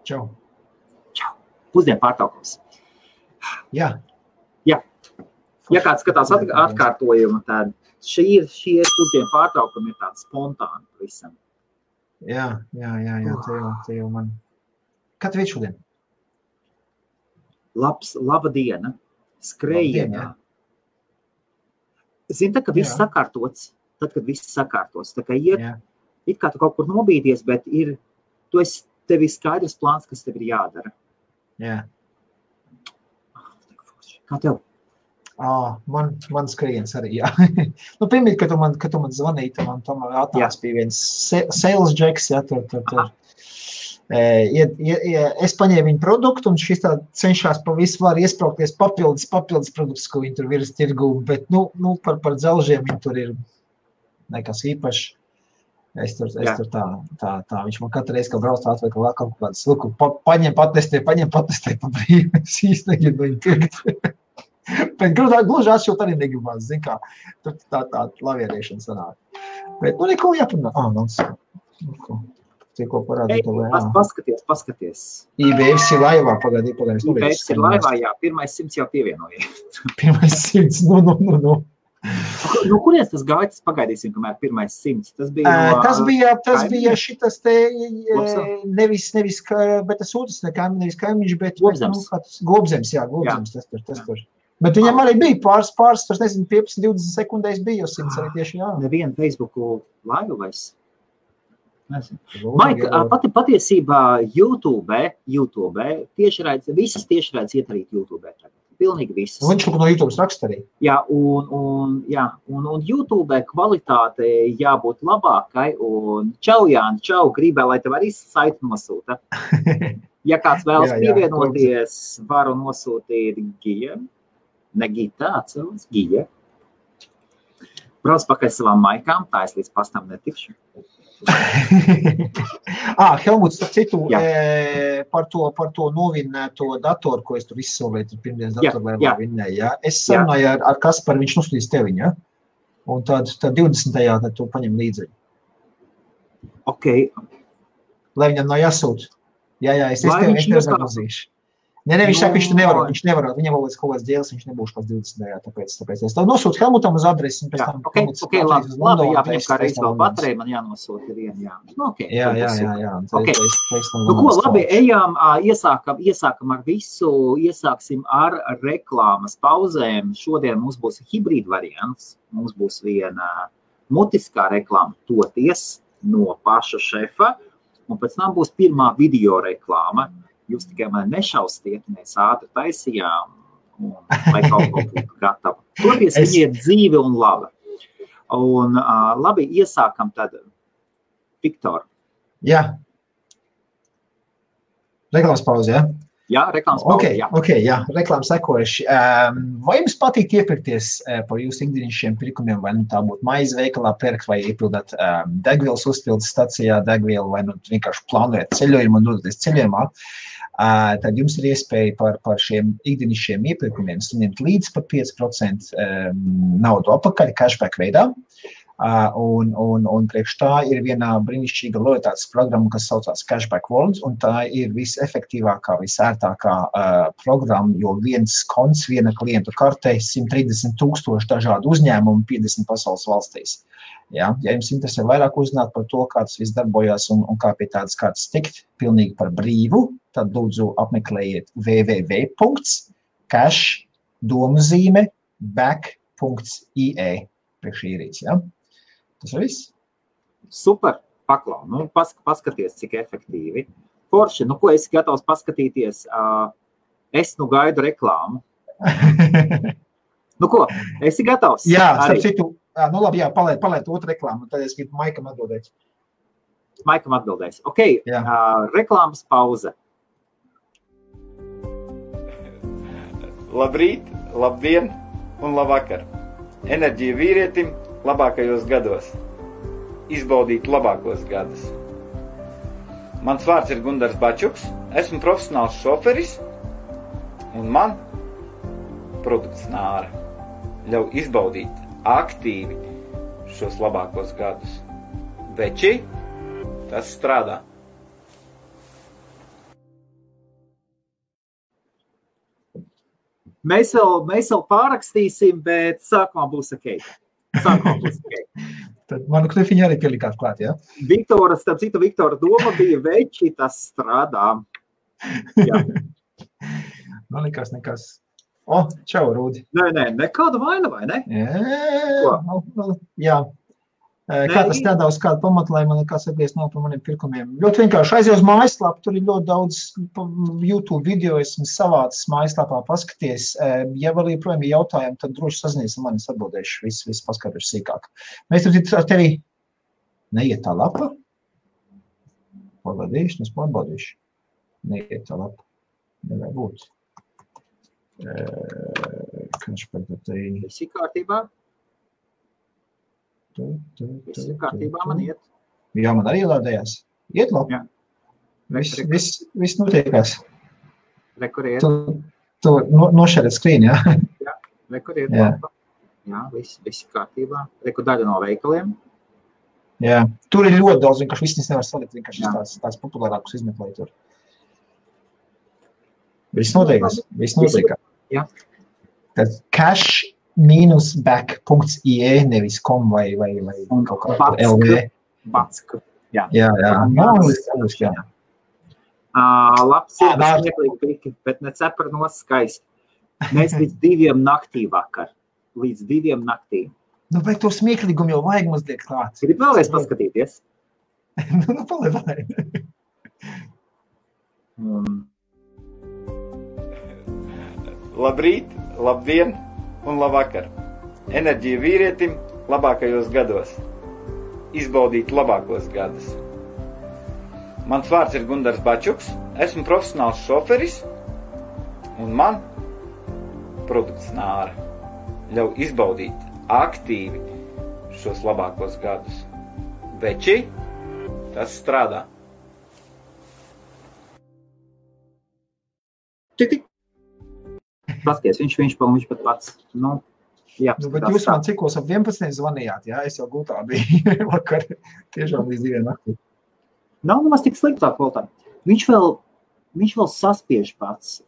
Čau. Čau. Pusdienu pārtraukums. Jā. Jā. Ja kāds skatās atkārtojumu, tad šie pusdienu pārtraukumi ir tādi spontāni visam. Jā, te jau man. Kad viņš šodien? Laba diena. Skrējienā. Zini, tā, ka viss sakārtots, tad, kad viss sakārtos. Tā kā it kā tu kaut kur nobīdies, bet tev ir skaidrs plāns, kas tev ir jādara. Jā. Kā tev? Man skrējiens arī, jā. Pirmīt, kad tu man zvanīji, man tomēr atnāc pie viens sales jacks, tur. Es paņēmu viņu produktu, un šis tā cenšās pa visu var iespraukties papildus produktus, ko viņi tur virs tirgu, bet, par dzelžiem viņi tur ir nekas īpaši. Es tur tā, viņš man katru reizi, kad brauc atvēr, ka vēl kaut kāds, paņem patestē pa brīvi, es īsti negribu viņu pirkt. Bet gluži atšķilt arī negribās, zin kā, tur tā lavierēšana sanāk. Bet, neko jāparunā. Tikko parādīt to Paskaties. IBFs ir laivā, pagaidī. IBFs ir laivā, jā, 100 jau pievienoja. 100, no. No kurienes tas gāja, tas pagaidīsim, kamēr 100? Tas bija šitas te, nevis, bet tas otrs nevis kaimiņš, bet Gobzems, tas tur. Bet viņam arī bija pāris, tas nezinu, 15-20 sekundēs bija, jo 100 arī tieši jā. Nevienu Facebooku laivu vairs. Maika, patiesībā YouTube visas tiešraides iet arī YouTube. Pilnīgi visas. Viņš no YouTube raksta arī. Jā, un YouTube kvalitāte jābūt labākai, un čau, Jāni, gribēju, lai tev arī saiti nosūta. Ja kāds vēlas pievienoties, varu nosūtīt Gija. Ne Gita, atceros, Gija. Brauc pakaļ savām maikām, tā es līdz pastam netikšu. Helmuts, starp citu, par to novinnēto datoru, ko es tur izsolvēju, pirmdienas datoru laivā vinnēju, jā. Es sarunāju ar Kasparu, viņš nosūtīs teviņu, jā? Un tad 20. tad tu paņem līdzi. Ok. Lai viņam nav jāsūt. Jā, es tev zaglazīšu. Nē, viņš saka, viņš nevar, viņam vēl līdz kaut kāds dēls, viņš nebūs kāds 20. tāpēc es tev nosūtu Helmutam uz adresi, un pēc tam... Ok, labi, jāpēc kā reiz vēl baterija, man jānosūta vienu, jā. Jā. Ko, labi, ejām, iesākam ar visu, iesāksim ar reklāmas pauzēm. Šodien mums būs hibrīd variants, mums būs viena mutiskā reklāma toties no paša šefa, un pēc tam būs pirmā video reklāma. Jūs tikai mani nešaustiet, mēs ātri taisījām, un lai kaut ko būtu gatava. Toties viņi ir dzīvi un laba. Un labi, iesākam tad, Viktor. Jā. Reklāmas pauze, jā? Jā, reklāmas pauze, jā. Jā, reklāmas sekojuši. Vai jums patīk iepirkties par jūsu ikdienišķiem pirkumiem, vai tā būtu maize veikalā pērkt, vai iepildāt degvielas uzpildes stacijā degvielu, vai vienkārši plānojat ceļojumu un dodaties ceļojumā? Tad jums ir iespēja par šiem ikdienišķiem iepirkumiem saņemt līdz pat 5% naudu apakaļ cashback veidā. Un priekš tā ir viena brīnišķīga lojalitātes programma, kas saucās Cashback World, un tā ir visefektīvākā, visērtākā programma, jo viens konts, viena klientu kartē, 130,000 dažādu uzņēmumu 50 pasaules valstīs. Ja jums interesē vairāk uzzināt par to, kā tas viss darbojās un kā pie tādas kārtas tikt, pilnīgi par brīvu, tad lūdzu apmeklējiet www.cash.back.ie priekš īrīts, ja? Tas ir viss? Super, paklau. Paskaties, cik efektīvi. Forši, ko esi gatavs paskatīties? Es gaidu reklāmu. Ko, esi gatavs? Jā, starp citu, labi, jā, palaid otru reklāmu, tad es gribu Maikam atbildēt. Maikam atbildēs. Ok, reklāmas pauze. Labrīt, labdien un labvakar. Enerģija vīrietim labākajos gados. Izbaudīt labākos gadus. Mans vārds ir Gundars Bačuks, esmu profesionāls šoferis, un man produkts Nāra ļauj izbaudīt aktīvi šos labākos gadus. Veči, tas strādā. Mēs vēl pārakstīsim, bet sākumā būs ok. Tad manu knifiņu arī pielikāt klāt, jā? Starp citu, Viktora doma bija veči, tas strādā. Jā. Man likās nekas. Čau, Rūdi. Nē, nekāda vaina, vai ne? Jā. Kā tas tādā uz kādu pamatu, lai man nekās atbies nav par maniem pirkumiem. Ļoti vienkārši aizies uz mājaslapu, tur ir ļoti daudz YouTube video, esmu savācis mājaslapā paskaties. Ja vēl joprojām ir jautājumi, tad droši sazinies ar mani, es atbildēšu, viss paskatīšu sīkāk. Mēs tur ar tevi neiet tā lapa? Pārbaudīšu. Neiet tā lapa. Nevajag būt. Kāds par te... Visi kārtībā? Visi kārtībā man iet. Jā, man arī lādējās. Iet labi. Viss notiekās. Rekur iet. Tu nošēret skrīni, jā? Jā, rekur iet labi. Jā, visi kārtībā. Rekur daļa no veikaliem. Jā, tur ir ļoti daudz, vienkārši viss nevar salikt, vienkārši tās populārākus izmeklēja tur. Viss notiekās. Jā. Tad cash-back.ie nevis com vai kaut kā LV. Batsk. Jā. Labs ir smieklīgi piki, bet ne cepra skaisti. Mēs līdz 2 naktī vakar. Līdz 2 naktī. Nu, bet to smieklīgumu jau vajag mazliet klāt. Gribu vēlreiz paskatīties? Paliek. Labrīt, labdien un labvakar. Enerģija vīrietim labākajos gados. Izbaudīt labākos gadus. Mans vārds ir Gundars Bačuks, esmu profesionāls šoferis un man produkts Nāra ļauj izbaudīt aktīvi šos labākos gadus. Veči, tas strādā. Tik. Paskaties, viņš pat pats. Bet jūs man cikos ap 11 zvanījāt, jā? Es jau gultā biju vakar, tiešām līdz 2 naktī. Nav nemaz tik sliktā kvalitāte. Viņš vēl saspiež pats.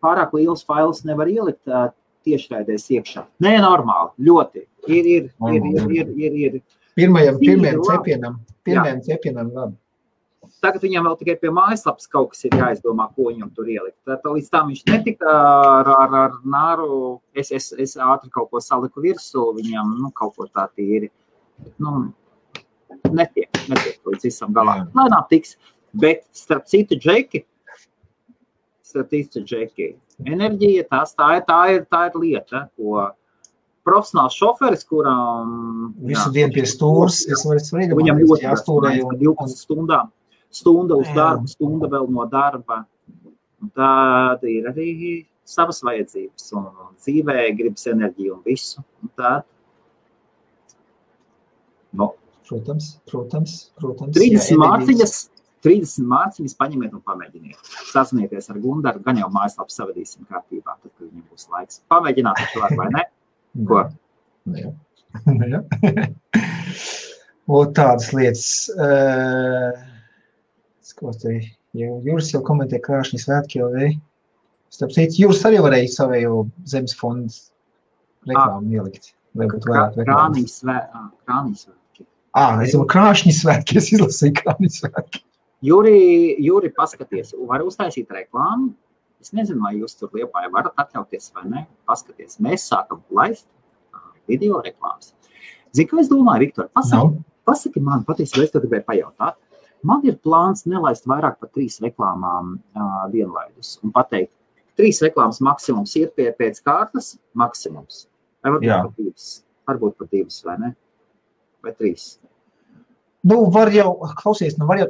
Pārāk liels fails nevar ielikt tiešraidēs iekšā. Nē, normāli, ļoti. Ir. Pirmajam cepienam labi. Tagad viņam vēl tikai pie mājaslapas kaut kas ir jāizdomā, ko viņam tur ielikt. Līdz tam viņš netika ar Nāru, es ātri kaut ko saliku virsū, viņam kaut ko tā tīri. Netiek līdz visam galā. Lēnām tiks, bet starp citu džeki, enerģija, tā ir lieta, ko profesionāls šoferis, kuram visu dienu pie stūras, viņam ļoti jāstūrēja 12 stundām. Stunda uz darbu, stunda vēl no darba. Un tāda ir arī savas vajadzības. Un dzīvē gribas enerģiju un visu. Un tāda. Protams. 30 mārciņas paņemiet un pamēģiniet. Sazinieties ar Gundaru, gan jau mājaslapu savadīsim kārtībā, tad, kad viņam būs laiks. Pamēģināt taču var, vai ne? Ko? Jā. O, tādas lietas. Jūras jau komentē krāšņi svētki jau vei. Starp citu, Jūras arī varēja savējo zemes fondu reklāmu ielikt. Krānī svētki. Es jau krāšņi svētki, es izlasīju krāšņi svētki. Jūri, paskaties, var uztaisīt reklāmu. Es nezinu, vai jūs tur Liepājā varat atļauties vai ne. Paskaties, mēs sākam laist video reklāmas. Zini, kā es domāju, Viktor, pasaki man, patiesībā es to gribēju pajautāt. Man ir plāns nelaist vairāk par 3 reklāmām vienlaidus un pateikt, 3 reklāmas maksimums ir pēc kārtas maksimums. Varbūt pat 2, vai ne? Vai 3? Var jau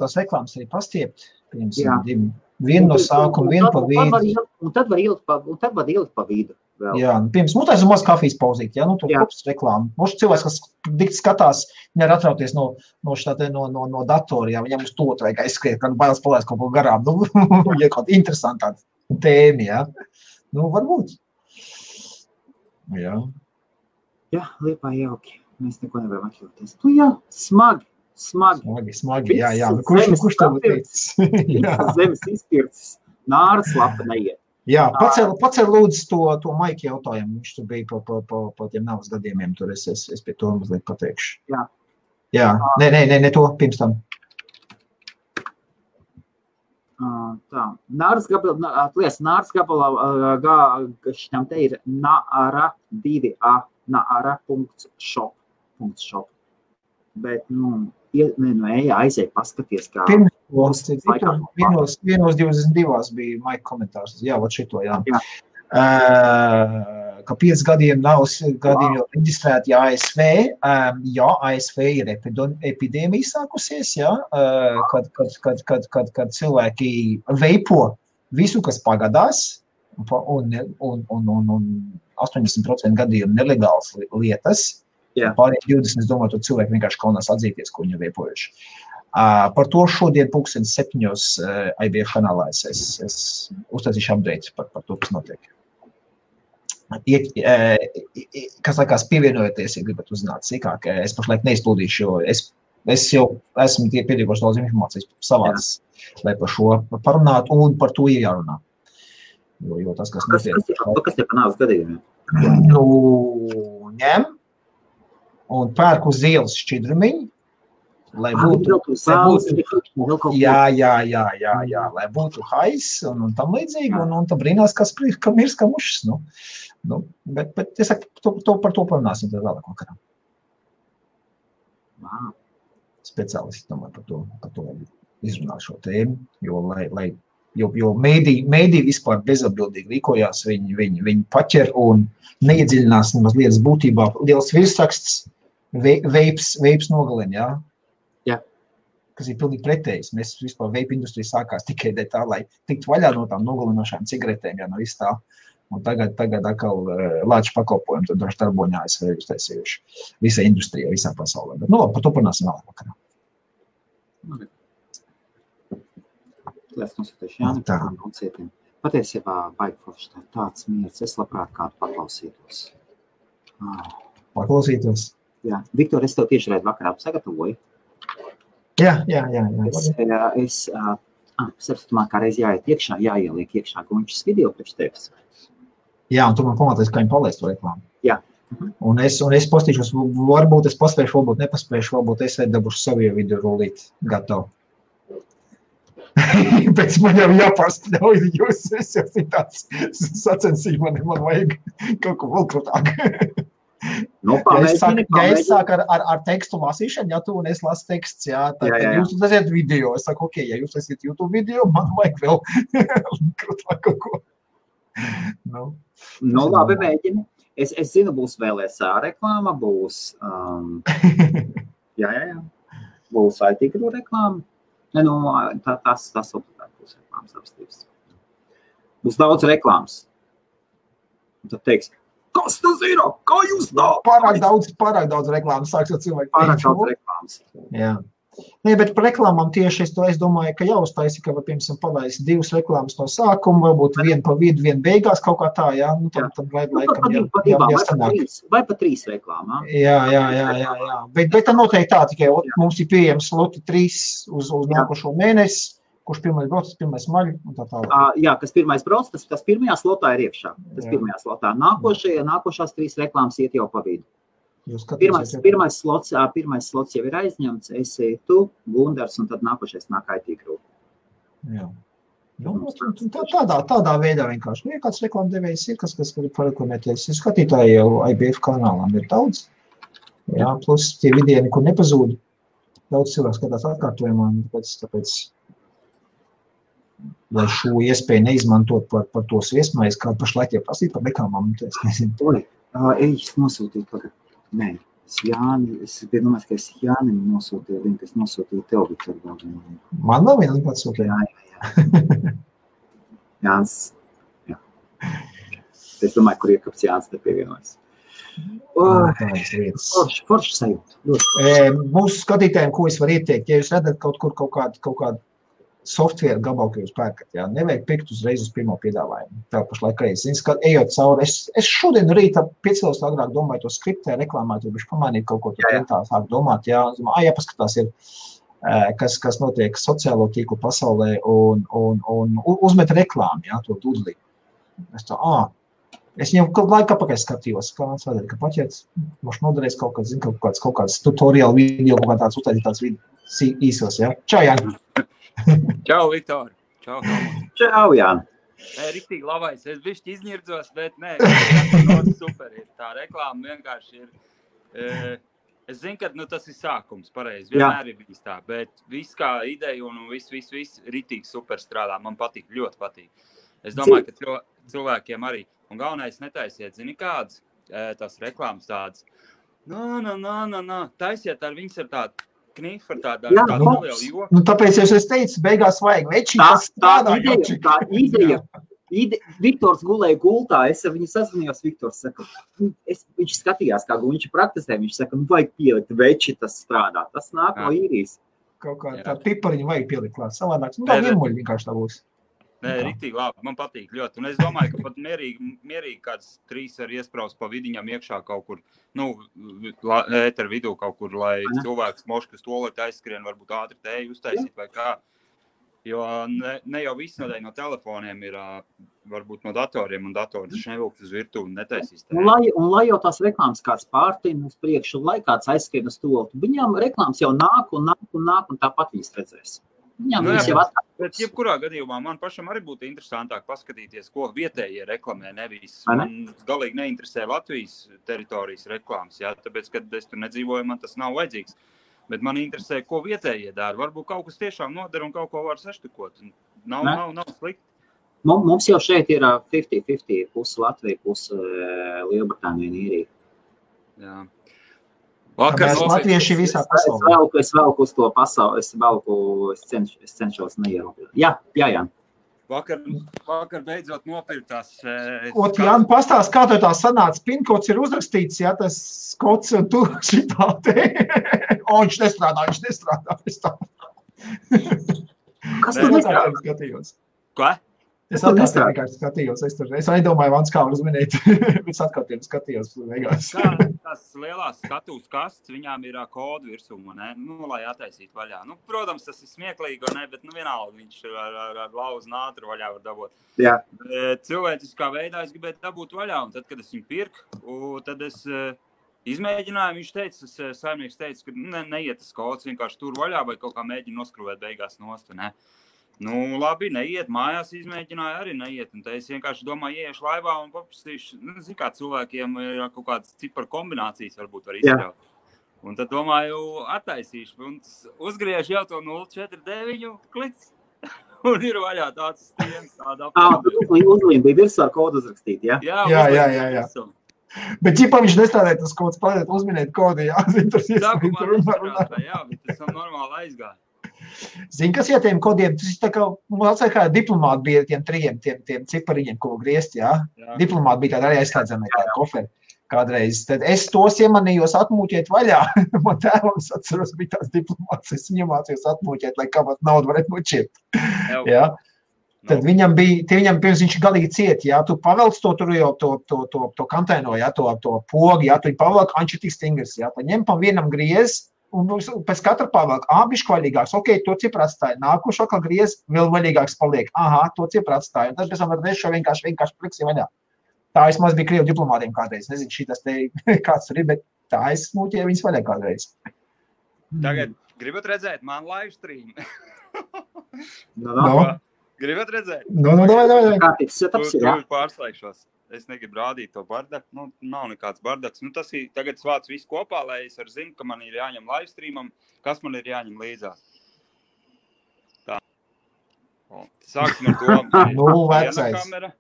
tās reklāmas arī pastiept. Vienu no sākuma, vienu pa vidu. Un tad var ielikt pa vidu. Vēl. Jā, pirms taisa maz kafijas pauzīt, to kopas reklāmu. Mums cilvēks, kas dikti skatās, nevar atrauties no datora, jā, viņam uz to vajag aizskriet, kad bailes palaist kaut ko garām. Ja kaut interesantā tēma, jā. Varbūt. Jā. Jā, Liepā jauki. Mēs neko nevaram atļauties. Jā, smagi. Jā. Kurš tev teicis? Zemes izpircis. Nāras lapa neiet. Jā, pacēl lūdzu to Maika jautājumu. Viņš tur bija pa tiem navas gadījumiem. Tur es pie to mazliet pateikšu. Jā. Nē, to pirms tam. Tā. Nāras gabalā šitam te ir naara 2a, naara.shop. Bet, aiziet paskaties, kā... Vienos 22 bija Maika komentārs. Jā, vat šito, jā. Ka 5 gadiem nav gadījumi jau reģistrēti ASV. Jā, ASV ir epidēmija sākusies, jā, kad cilvēki veipo visu, kas pagadās, un 80% gadījumu nelegāls lietas. Pārējiem 20, es domāju, to cilvēki vienkārši kaunās atzīties, ko viņi veipojuši. Par to šodien 7:00 IBF kanālā es uztaisīšu update par to, kas notiek. Kas laikās pievienojoties, ja gribat uzzināt sīkāk, es pašlaik neizplūdīšu, jo es jau esmu piedīgoši daudz informācijas savāds, lai par šo parunātu un par to ir jārunā. Jo tas, kas notiek. Kas te panāks gadījumiem? Ņem un pērk uz ielas šķidrumiņu, lai būtu lai būtu hais un tam līdzīgi, un tam brīnās, ka mirs kā mušas, bet es saku, par to parunāsim tad vēlāk vakarā. Speciālisti domāju par to izrunāt šo tēmu, jo mēdī vispār bezatbildīgi rīkojās, viņi paķer un neiedziļinās nemaz lietas būtībā. Liels virsraksts, veips nogalina, jā? Kas ir pilnīgi pretējs. Mēs vispār veipa industrija sākās tikai tā, lai tiktu vaļā no tām nogalinošām cigaretēm, no viss tā. Un tagad atkal lāču pakalpojumi, tad droši darboņā ASV uztaisījuši visai industrijai, visā pasaulē. Bet, par to parunāsim vēlāk vakarā. Es nosūtīšu Jāni par koncietiem. Patiesībā baigi forši tāds miers. Es labprāt kādu paklausītos. Paklausītos? Jā. Viktor, es tev tieši redz vakarā sagatavoju. Jā. Es saprotamā kā reiz jāiet iekšā, jāieliek iekšā Gunčas video priekš tevis. Jā, un tu man pamatīs, kā viņi palaist to reklāmu. Jā. Un es postīšos, varbūt es paspēšu, varbūt nepaspēšu, varbūt es dabūšu savu video rullīt gatavu. Pēc man jau jāpārspļauj jūs, es jau tāds sacensību, man vajag kaut ko vēl krūtāk. Ja es sāku ar tekstu lasīšanu, ja tu un es lasu teksts, tad jūs uztaisiet video. Es saku, ok, ja jūs taisiet YouTube video, man vajag vēl krūtāk kaut ko. Labi, mēģini. Es zinu, būs vēl SA reklāma, būs būs iTikru reklāma. Tas obligāti būs reklāmas apstības. Būs daudz reklāmas. Un tad teiks, kas tas ir? Kā jūs tā? Pārāk daudz reklāmas sāks cilvēki. Pārāk daudz reklāmas. Jā. Nē, bet par reklāmām tieši es domāju, ka jāuztaisi, ka, piemēram, palaist 2 reklāmas no sākuma, varbūt viena pa vidu, viena beigās kaut kā tā, jā. Tad laikam jāstanāk. Vai pa 3 reklāmām. Jā. Bet tā noteikti tā, tikai mums ir pieejams sloti 3 uz nākošo mēnesi, kurš pirmais brauc, tas pirmais maļ un tā tālāk. Jā, kas pirmais brauc, tas pirmajā slotā ir iekšā. Tas pirmajā slotā. Nākošās 3 reklāmas iet jau pa vidu. Pirmais slots jau ir aizņemts, esi tu, Gundars, un tad nākošais nāk iTikru. Jā. Tādā veidā vienkārši. Ja kāds reklāmdevējs ir, kas grib pareklamēties, skatītāji jau IBF kanālām ir daudz. Jā, plus tie vidie nekur nepazūd. Daudz cilvēku skatās atkārtojumā, tāpēc lai šo iespēju neizmantot par tos viesmais, kā pašlaik jau prasīt par reklāmām, es nezinu. Es nosūtīju tagad. Nē, es domāju, ka es Jānim nosūtīju linku, es nosūtīju tev, Viktor. Man nav viena link atsūtīja. Jā. Jānis, jā. Es domāju, kur iekāps Jānis te pievienojas. Forši sajūta. Mūsu skatītājiem, ko es varu ieteikt, ja jūs redzat kaut kādu software gabalu, ka jūs pērkat, nevajag pirkt uzreiz uz pirmo piedāvājumu. Tā pašlaik reiz. Ejot cauri, es šodien rītā 5 stundas agrāk domāju to skriptē, reklāmēt, bišķi pamanīt kaut ko tā sāk domāt, jāpaskatās ir, kas notiek sociālo tīklu pasaulē un uzmet reklāmu, to dudlī. Es tā, es viņam kaut laiku apakaļ skatījos, kā mans vajadzēja, ka paķēts, moši noderēs kaut kāds, zinu, kaut kāds tutorial video, kaut kā tāds uztaisīt tāds īsos, ja? Čau, Jāni! Čau, Viktor! Čau, Helmut! Čau, Jāni! Riktīgi labais, es bišķi izņirdzos, bet nē, super ir. Tā reklāma vienkārši ir. Es zinu, ka tas ir sākums, pareizi, vienmēr ir bijis tā, bet viss kā ideja un viss riktīgi super strādā, man patīk, ļoti patīk. Es domāju, ka cilvēkiem arī, un galvenais netaisiet, zini kādas, tās reklāmas tādas, taisiet ar viņas ar tādu knifu, ar tādu nelielu joku. Nu, tāpēc es teicu, beigās vajag večī, kas strādā. Tā ideja. Viktors gulēja gultā, es ar viņu sazvanījos, Viktors saka, viņš skatījās, kā viņš praktizē, viņš saka, vajag pielikt veči, tas strādā, tas nāk no īrijas. Kaut kā tā pipariņu vajag pielikt klāt, savādāk, tā vienmuļi vienkārši tā būs. Nē, riktīgi labi, man patīk ļoti, un es domāju, ka pat mierīgi kāds 3 var iespraust pa vidiņam iekšā kaut kur, ēteru vidū kaut kur, lai cilvēks moškas tolēt aizskrien, varbūt ātri tēju uztaisīt vai kā. Jo ne jau viss nedēļ no telefoniem ir, varbūt no datoriem, un datori taču nevilkt uz virtuvi un netaisīs tēju. Un lai jau tās reklāmas kāds pārtīm uz priekšu, lai kāds aizskrien uz toltu, viņām reklāmas jau nāk, un tāpat viņas redzēs. Viņām viņas jau atkārt. Bet jebkurā gadījumā man pašam arī būtu interesantāk paskatīties, ko vietējie reklamē, nevis. Man galīgi neinteresē Latvijas teritorijas reklāmas, tāpēc, kad es tur nedzīvoju, man tas nav vajadzīgs. Bet man interesē, ko vietējie dara. Varbūt kaut kas tiešām nodara un kaut ko var saštukot. Nav slikti. Mums jau šeit ir 50-50, pusi Latvija, pusi Lielbritānija un Īrija. Jā. Mēs latvieši visā pasaulē. Es velku uz to pasauli, es cenšos neierobežot. Jā. Vakar beidzot nopirktās. Jāni, pastāst, kā tev tā sanāca, pinkods ir uzrakstīts, tas kods un tu šitā te. Viņš nestrādā. Kas tu nestrādā? Skatījos. Ko? Es atkārtiem vienkārši skatījos. Es nedomāju, Vans, kā uzminēt. Es atkārtiem skatījos. Tās lielās skatuves kastes, viņām ir kodu virsū, ne? Lai attaisītu vaļā. Protams, tas ir smieklīgi, ne? Bet vienalga viņš ar lauzu nātru vaļā var dabūt. Jā. Cilvēciskā veidā es gribētu dabūt vaļā, un tad, kad es viņu pirku, tad es izmēģināju, saimnieks teica, ka neiet tas kods, vienkārši tur vaļā vai kaut kā mēģina noskrūvēt beigās nost, ne? Labi, neiet, mājās izmēģināju, arī neiet, un te es vienkārši domāju, ieiešu laivā un paprasīšu, zinu, kā cilvēkiem ir kaut kādas ciparu kombinācijas varbūt var izstrāvāt. Un tad domāju, attaisīšu, un uzgriežu jau to 049 kliks, un ir vaļā tāds stiens, tāda apkārt. Uzlīm bija virsū ar kodu uzrakstīt, jā? Jā. Bet ķipā viņš nestrādāja tas kods, palēt uzminēt kodu, Sākumā nestrādāja, jā, bet tas normāli aizgāja. Zini, kas tiem kodiem, tas ir tā kā diplomāti bija tiem 3, tiem cipariņiem, ko griezt, jā? Diplomāti bija tādi arī aizslēdzami tādi koferi kādreiz. Tad es tos iemanījos atmūķēt vaļā. Man tēvam, es atceros, bija tās diplomāts, es viņam mācījos atmūķēt, lai kāpāt naudu varētu noķirt. Jā? Tad viņam pirms viņš galīgi ciet, jā? Tu pavelc to tur jau to kantēno, jā? To pogi, jā? Tu viņi pavelk, viņš ir tik stingrs, jā? Tad ņem pa vienam griez, un pēc katra pavelk, bišķi vaļīgāks, to cipru atstāja, nākušo kā griez, vēl vaļīgāks paliek, to cipru atstāja, un tad pēc tam var šo vienkārši pliksi vaļā. Tā es maz bija Krievu diplomātiem kādreiz, nezinu, šitas te kāds tur ir, bet tā es smūķēju viņas vaļā kādreiz. Tagad gribat redzēt man live stream? Gribat redzēt? Davai. Kārtīgs setups ir, jā? Tur pārslēgšos. Es negribu rādīt to bardaku, nav nekāds bardaks. Tas ir, tagad svāc visu kopā, lai es arī zinu, ka man ir jāņem live streamam, kas man ir jāņem līdzās. Tā. Sāksim ar to. Viena kamera,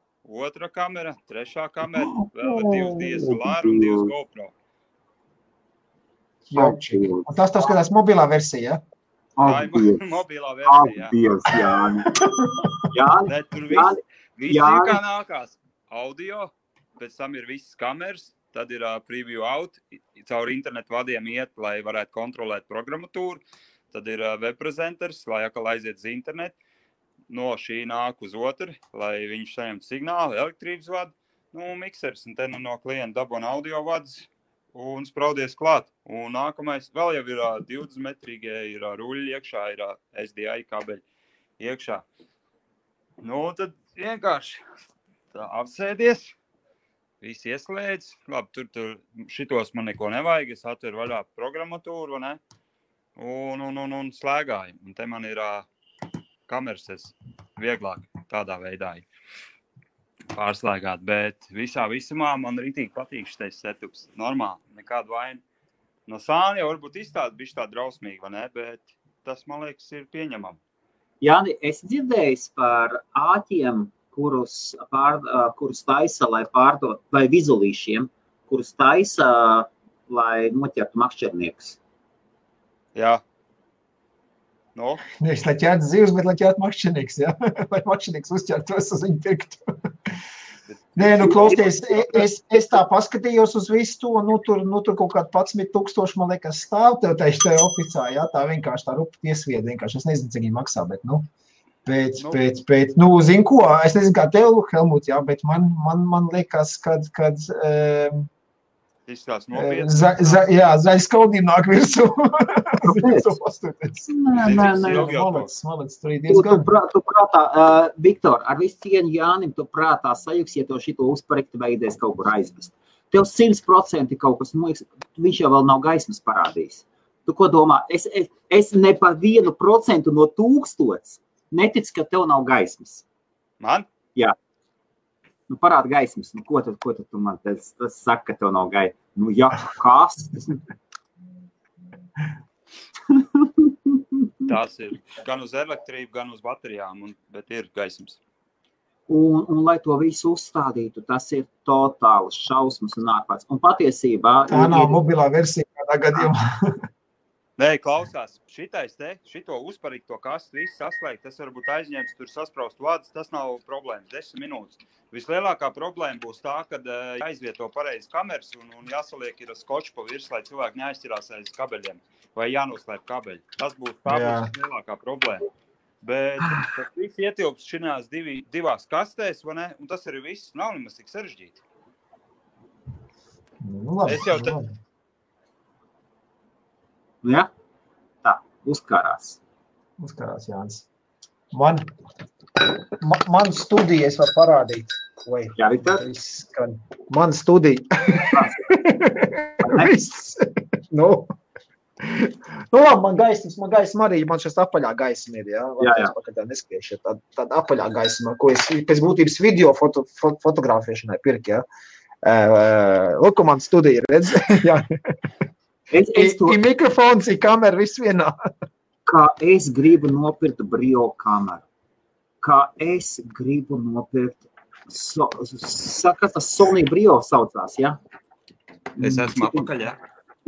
otra kamera, trešā kamera, vēl ir 2 DSLR un 2 GoPro. Un tas skatās mobilā versija, Tā ir mobilā versija, jā. Tur viss ir kā nākās. Audio, pēc tam ir visas kameras, tad ir preview out, caur internetu vadiem iet, lai varētu kontrolēt programmatūru, tad ir webprezenters, lai atkal aiziet uz internetu, no šī nāk uz otru, lai viņš saņemtu signālu, elektrības vadu, miksers, un te no klienta dabona audio vads un spraudies klāt. Un nākamais vēl jau ir 20 metrīgie, ir ruļļi iekšā, ir SDI kabeļi iekšā. Tad vienkārši Tā apsēdies. Visi ieslēdz. Labi, tur šitos man neko nevajag. Es atveru vaļā programmatūru, vai ne? Un slēgāju. Un te man ir kameras vieglāk tādā veidā pārslēgāt. Bet visumā man rītīgi patīk šitais setups. Normāli, nekādu vainu. No sāna jau varbūt izstāda bišķi tā drausmīgi, vai ne? Bet tas, man liekas, ir pieņemam. Jāni, es dzirdējis par āķiem, kurus taisa, lai pārdot, vai vizulīšiem, kurus taisa, lai noķertu makšķerniekus. Jā. No? Nevis, lai ķertu zivs, bet lai ķertu makšķernieks, jā? Lai makšķernieks uzķertos uz viņu pirktu. Nē, klausties, es tā paskatījos uz visu to, tur kaut kādu 11,000, man liekas, stāv tev tajā oficā, jā? Tā vienkārši tā rupa tiesvieda, vienkārši. Es nezinu, cik viņi maksā, bet, zinu ko, es nezinu, kā tev, Helmut, jā, bet man liekas, kad izskatās nopietni. Zaļs kaudīm nāk virsū. Malac, tur ir diezgan. Tu prātā, Viktor, ar visu cieņu Jānim, tu prātā sajuks, ja tev šito uzparekti veidies kaut kur aizvest. Tev 100% kaut kas, viņš jau vēl nav gaismas parādījis. Tu ko domā? Es ne par 1% no 1000 neticu, ka tev nav gaismas. Man? Jā. Parāda gaismas. Ko tad tu man tas saka, ka tev nav gaismas? Jā, kas? Tās ir gan uz elektrību, gan uz baterijām, bet ir gaismas. Un lai to visu uzstādītu, tas ir totāls šausmas un ārpats. Un patiesībā... Tā nav mobilā versija kādā gadījumā. Nē, klausās, šito uzparīgto kastu visu saslēgt, tas varbūt aizņems tur saspraust vārdus, tas nav problēmas, 10 minūtes. Vislielākā problēma būs tā, kad jāizvieto pareizi kameras un jāsaliek ir skočs pa virs, lai cilvēki neaizķirās aiz kabeļiem vai jānoslēp kabeļi. Tas būs lielākā problēma. Bet tas viss ietilps šinās divās kastēs, vai ne? Un tas arī viss nav nemaz tik sarežģīti. Es jau Jā, tā, uzkarās. Uzkarās, Jānis. Man studija, es var parādīt. Jā, Viktor? Man studija. Viss. Labi, man gaisma arī, man šis apaļā gaisma ir, jā? Jā. Neskriešie, tāda apaļā gaisma, ko es pēc būtības video fotografēšanai pirku, jā? Lūk, man studija ir, redz? Jā. Ir mikrofons, ir kamera, viss vienā. Kā es gribu nopirkt Brio kameru. Kā es gribu nopirkt, saka, tas Sony Brio saucās, jā? Es esmu apakaļ, jā?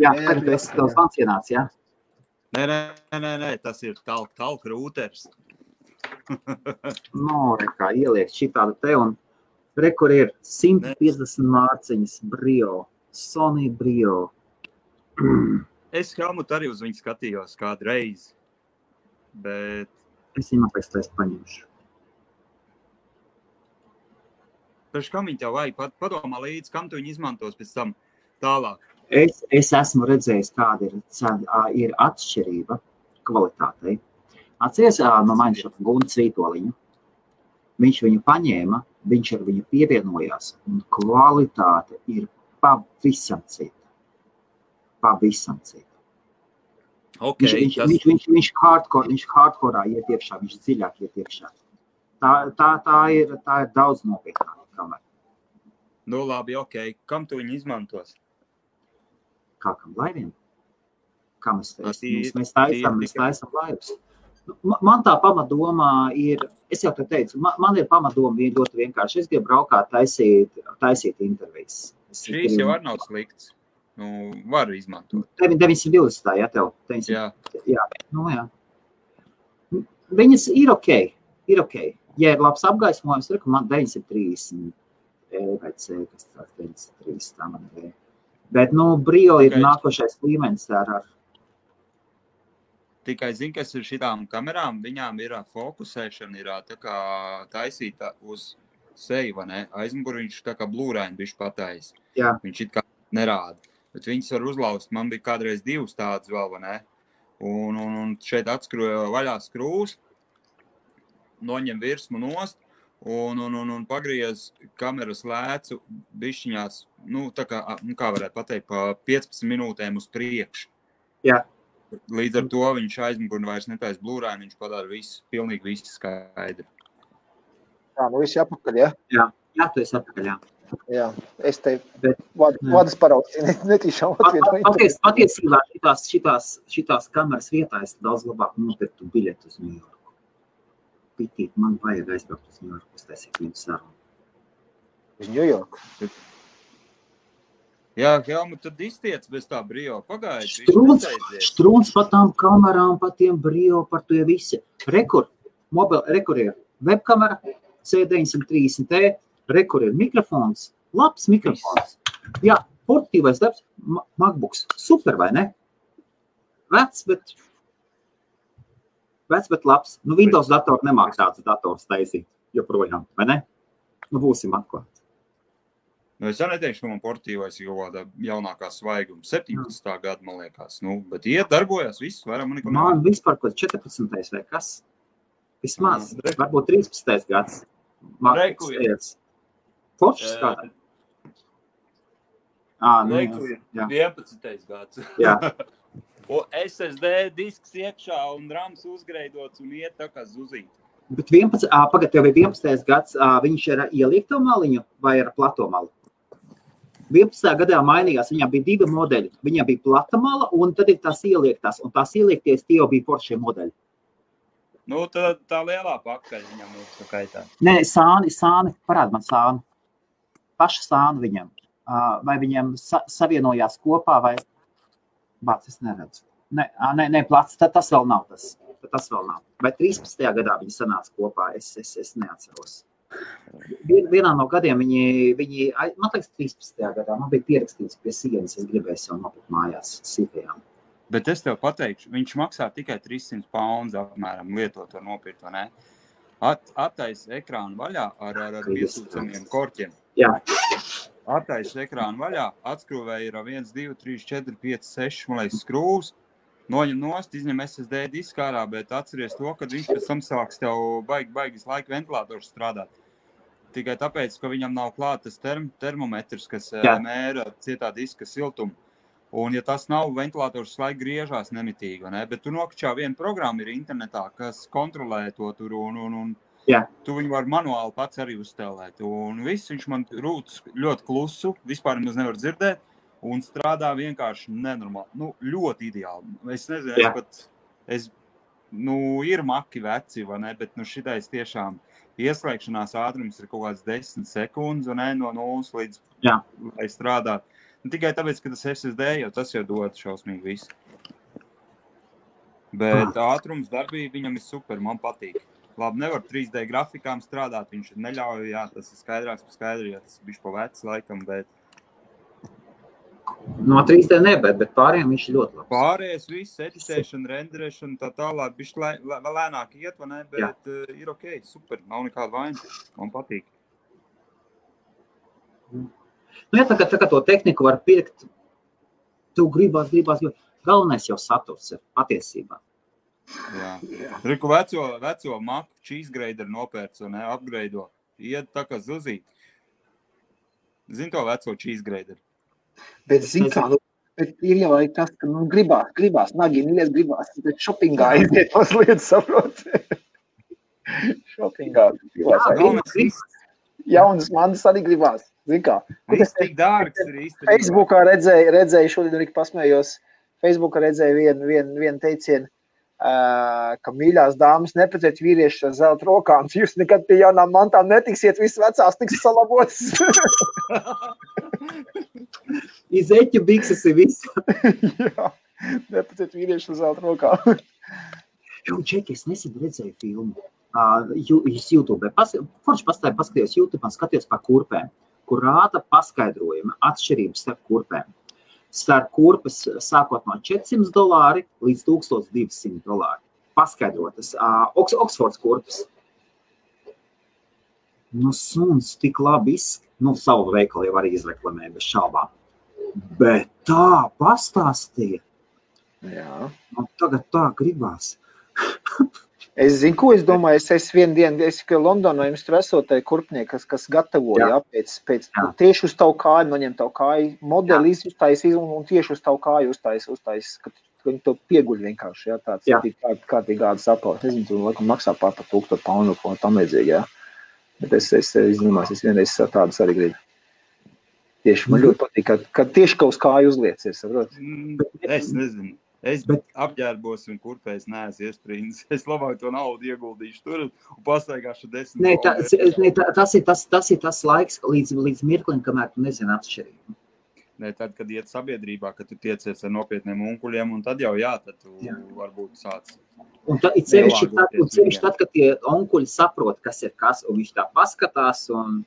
Jā, kad tu esi tavs vans ienāc, jā? Nē, tas ir talk rūters. Kā ieliek šitādu te un rekur ir 150 mārciņas Brio, Sony Brio. Es Helmut arī uz viņu skatījos kādu reizi, bet... Es viņu pēc tā paņemšu. Pēc kam viņi tev vajag? Padomā līdz, kam tu viņu izmantos pēc tam tālāk? Es esmu redzējis, kāda ir atšķirība kvalitātei. Atceries no manis Gunts Vītoliņu. Viņš viņu paņēma, viņš ar viņu pievienojās, un kvalitāte ir pavisam cita. Pavisam cita. Okay, viņš hardcore iet iekšā, viņš dziļāk iet iekšā. Tā ir daudz nopietnāka kamera. Labi, ok. Kam tu viņu izmantos? Kā kam laiviem? Kā mēs taisam laivus. Man tā pamatdomā ir, es jau te teicu, man ir pamatdoma ļoti vienkārši. Es gribu braukāt taisīt intervijas. Šīs jau arī nav slikts. Varu izmantot. 920, jā, tev? 900. Jā. Jā. Viņas ir ok. Ja ir labs apgaismojums, man 930 vai C, kas tā 930, tā man ir. Bet, Brio ir nākošais līmenis ar... Tikai zini, kas ir šitām kamerām, viņām ir fokusēšana, ir tā kā taisīta uz seju, vai ne? Aizmuguri viņš tā kā blūraini bišķi patais. Jā. Viņš it kā nerāda. Bet viņas var uzlaust. Man bija kādreiz 2 tādas vēl, vai ne? Un šeit atskroja vaļā skrūs, noņem virsmu nost, un pagriez kameras lēcu bišķiņās, kā varētu pateikt, pa 15 minūtēm uz priekšu. Jā. Līdz ar to viņš aizmugurni vairs netaisa blūrāni, viņš padara visu, pilnīgi visu skaidri. Jā, nu visi apakaļ, ja? Jā, tu esi apakaļ, jā. Jā, es te vadas paraugs, netīšām atvienu. Patiesībā šitās kameras vietā es daudz labāk nopirktu biļetu uz New Yorku. Pitīt, man vajag aizbraukt uz New Yorku, es taisīju viņu sarunu. Uz New Yorku? Jā, Helmut, tad iztiec bez tā brio, pagaidi. Strūns par tām kamerām, par tiem brio, par to visi. Rekur ir webkamera, C930T, rekur ir mikrofons, labs mikrofons. Jā, portatīvais labs, MacBooks, super, vai ne? Vecs, bet labs. Windows datoru nemāk tāds dators taisīt, joprojām, vai ne? Būsim atklāt. Es jau neteikšu, ka man portatīvais ir kaut kāda jaunākā svaiguma, 17. gada, man liekas. Bet darbojas viss, vairāk man neko nevajag. Man vispār kaut 14. vai kas? Vismaz, varbūt 13. gads. Reku Foršs kādā? Reku ir 11. gads. Jā. Un SSD disks iekšā un rams uzgreidots un iet tā kā zuzīt. Bet pagad, tev ir 11. gads, viņš ir ieliekto maliņu vai ar plato malu? 11. gadā mainījās, viņām bija 2 modeļi. Viņām bija plata mala un tad ir tās ieliektās. Un tās ieliekties tie jau bija foršie modeļi. Tā lielā pakaļ viņam ir tā kaitā. Nē, sāni, parād man sāni. Paša sāni viņam. Vai viņam savienojās kopā vai... Bāc, es neredzu. Nē, plats, tas vēl nav tas. Tas vēl nav. Vai 13. gadā viņi sanāca kopā, es neatceros. Vienā no gadiem viņi, man liekas, 13. gadā, man bija pierakstīts pie sienas, es gribēju jau nopirkt mājās sīkajām. Bet es tev pateikšu, viņš maksā tikai 300 pounds apmēram lietot to nopirkt, vai ne? Attais ekrānu vaļā ar piesūcamiem korķiem. Jā. Attais ekrānu vaļā, atskrūvēja ir 1, 2, 3, 4, 5, 6, man liekas, skrūvs. Noņem nost, izņem SSD disku ārā, bet atceries to, kad viņš pēc tam sāks tev baigas laika ventilators strādāt. Tikai tāpēc, ka viņam nav klāt tas termometrs, kas mēra cietā diska siltumu. Un ja tas nav, ventilators laika griežās nemitīgi, vai ne? Bet tu nokļā viena programma ir internetā, kas kontrolē to tur un tu viņu var manuāli pats arī uzstelēt. Un viss viņš man rūtas ļoti klusu, vispār nemaz nevar dzirdēt. Un strādā vienkārši nenormāli, ļoti ideāli. Es nezinu, ir maki veci, vai ne, bet šitais tiešām ieslēgšanās ātrums ir kaut kāds 10 sekundes, vai ne, no 0 līdz, lai strādāt. Tikai tāpēc, ka tas SSD tas jau dod šausmīgi visu. Bet ātrums darbība viņam ir super, man patīk. Labi, nevar 3D grafikām strādāt, viņš neļauj, tas ir skaidrāks pa skaidri, tas bišķi pa veci laikam, bet no 3D ne, bet pārējiem viņš ir ļoti labs. Pārējais viss, editēšana, renderēšana, tā tālāk, bišķi vēl lēnāk iet, vai ne, bet ir ok, super, nav nekāda vaina, man patīk. Tā kā to tehniku var pirkt, tu gribās, jo galvenais jau saturs ir patiesībā. Jā. Riku veco Macu cheese grader nopērts, vai ne, upgraido, iet tā kā zuzīt. Zini to veco cheese grader? Bet, zin kā, ir jau tas, ka gribās, nagi, mīļies gribās, bet šopingā aiziet mazliet, saprot. Šopingā gribās. Jaunas manas arī gribās, zin kā. Viss tik dārgs ir īstenībā. Facebookā redzēju, šodien arī pasmējos, Facebookā redzēju vienu teicienu, ka mīļās dāmas neprecēt vīrieši ar zelta rokām, jūs nekad pie jaunām mantām netiksiet, viss vecās tiks salabotas. Iz eķu bikses ir viss. Jā, neprecēt vīrieši ar zelta rokām. Čeki, es nesen redzēju filmu YouTube. Forši paskatījos YouTube un skatījos par kurpēm, kur rāda paskaidrojumi atšķirības starp kurpēm. Starp kurpes sākot no $400 līdz $1200. Paskaidrotas. Oksfords kurpes. Suns tik labi savu veikalu jau arī izreklamē bez šaubām. Bet tā pastāstīja. Jā. Tagad tā gribās. Es zinu, ko es domāju, es vienu dienu, Londonā jums tur esot tai kurpnieki, kas gatavoja, pēc tieši uz tavu kāju, noņem tavu kāju modeli, uztais un tieši uz tavu kāju uztais, ka viņi to pieguļ vienkārši, tāds kārtīgi gādas apaus. Nezinu, tu laikam maksā pār par 1000 poundu, ko tam vajadzīgi, Bet es domāju, es vienreiz tādas arī gribu. Tieši man ļoti patīk, ka tieši kaut uz kāju uzliec, saprot? Es nezinu. Es apģērbos un kurpēs neesmu iesprīdis. Es labāk to naudu ieguldīšu tur un pastaigāšu 10. Tas ir tas laiks līdz mirklim, kamēr tu nezini atšķirību. Tad, kad iet sabiedrībā, kad tu tiecies ar nopietniem unkuļiem, un tad jau tad tu varbūt sāc. Un sevišķi tad, kad tie onkuļi saprot, kas ir kas, un viņš tā paskatās, un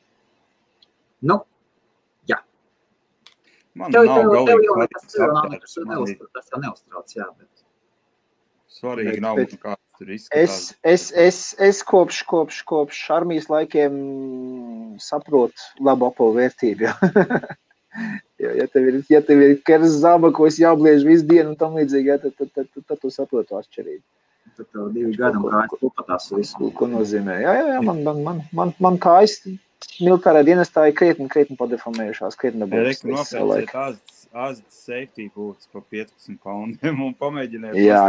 Man nav galīgi tas jau neuztrauc, bet svarīgi nav, kāds tur izskatās. Es kopš armijas laikiem saprotu labu apavu vērtību, Ja tev ir keras zaba, ko es jābliež visu dienu un tam līdzīgi, tad tu saprotu atšķirību. Tad tev 2 gadi un kājas kopatās visu. Ko nozīmē? Jā, man kājas militārā dienestā ir krietni padeformējušās, krietni dabūs. Nopērciet Asdas safety boots pa 15 poundiem un pamēģiniet. Jā.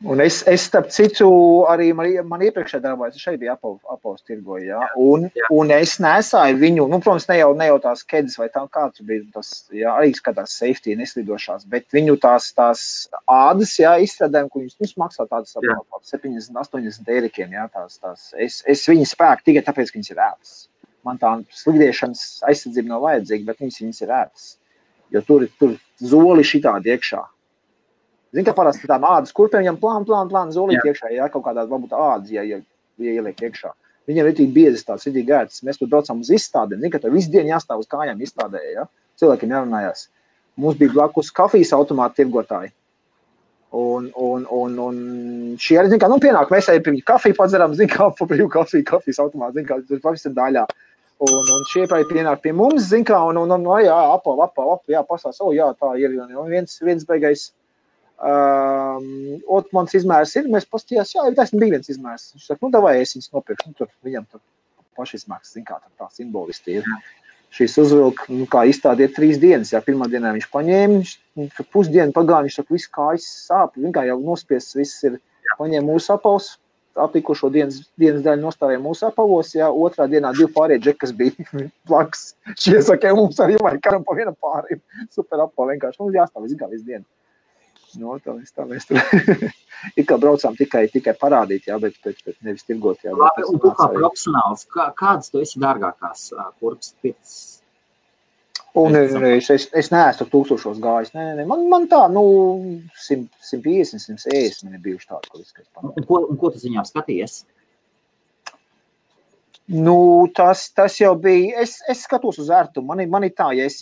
Un es starp citu, arī man iepriekšē darbājas, es šeit biju apavus tirgoju, un es nesāju viņu, protams, ne jau tās kedas vai tā, kā tur bija, tas, arī skatās safety neslidošās, bet viņu tās ādas, izstrādājumi, ko viņus maksā tādas 70-80 eirikiem, es viņu spēku tikai tāpēc, ka viņas ir ētas. Man tā slidiešanas aizsardzība nav vajadzīga, bet viņas ir ētas, jo tur zoli šitādi iekšā. Zini, ka parasti tām ādas kurpēm viņam plān zolīt iekšā, kaut kādā varbūt ādas, ja ieliek iekšā. Viņam ir tik biezas tāds, ir tik gērts. Mēs tur braucam uz izstādēm. Zini, ka tev visu dienu jāstāv uz kājām izstādē, Cilvēkiem jārunājās. Mums bija blakus kafijas automāta tirgotāji. Un šie arī, zini, kā, pienāk, mēs arī kafiju padzeram, zini, kā, pa brīvu kafijas automāta, zini, kā, tur pavisam daļā. Un šie arī pienāk pie mums, zini, kā, apav, pasās, tā ir, un viens beigais, mans izmērs ir, mēs pastījās, tas bija viens izmērs. Viņš saka, davai, es viņus nopirkšu, tur viņam tur paši izmērs, zin kā, tā simbolisti ir. Šīs uzvilk, kā izstādi ir 3 dienas, pirmā dienā viņš paņēma, pusdienu pagāja, viņš saka, visu kājas sāp, viņš kā jau nospiests, viss ir, paņēma mūsu apavus, atlikušo dienas daļu nostāvēja mūsu apavos, otrā dienā 2 pārējie džeki, kas bija blakus. Šie saka, mums arī vajag karam pa viena pārējiem, super apavu vienkārši, mums jāstāv visu dienu. Tā mēs tur ir kā braucām tikai parādīt, bet nevis tirgot. Labi, un tu kā profesionāls, kādas tu esi dārgākās kurpes pēc? Es neesmu 1000 gājis. Man tā, 150, 170 man ir bijuši tādi, Un ko tu ziņām skaties? Tas jau bija, es skatos uz ērtumu, man ir tā, ja es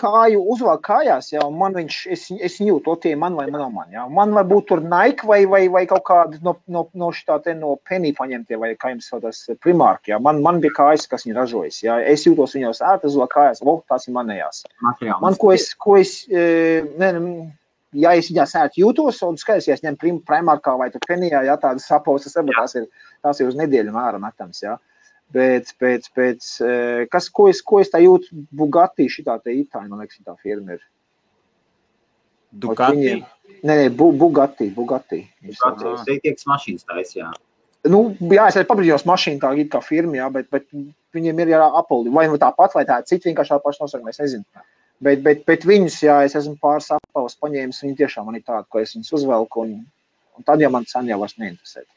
kāju uzvalk kājās, man es jūtu, tie man vai man, Man vai būt tur Nike vai kaut kādi no šitā no Penny paņemtie, vai kā jums saucās Primark, Man bija kājas, kas viņi ražojas, Es jūtos viņos ērti uzvalk kājās, tās ir manējās. Man, ko es ja es viņās ērti jūtos, un skaidrs, ja es ņem Primarkā vai tur Pennyjā, tādas sapavas, tās ir uz nedēļu mēra metams, Bet, ko es tā jūtu, Bugatti šitā te Itāļi, man liekas, šitā firma ir. Ducati? Nē, Bugatti. Bugatti, teiks mašīnas tais, es arī pabrīdījos mašīnu tā kā firma, bet viņiem ir Apple, vai tāpat, vai tā cita vienkārši tā paša nosaka, es nezinu. Bet viņus, es esmu pāris apavus paņēmis, viņi tiešām man ir tādi, ko es viņus uzvelku, un tad jau man sen jau vairs neinteresē.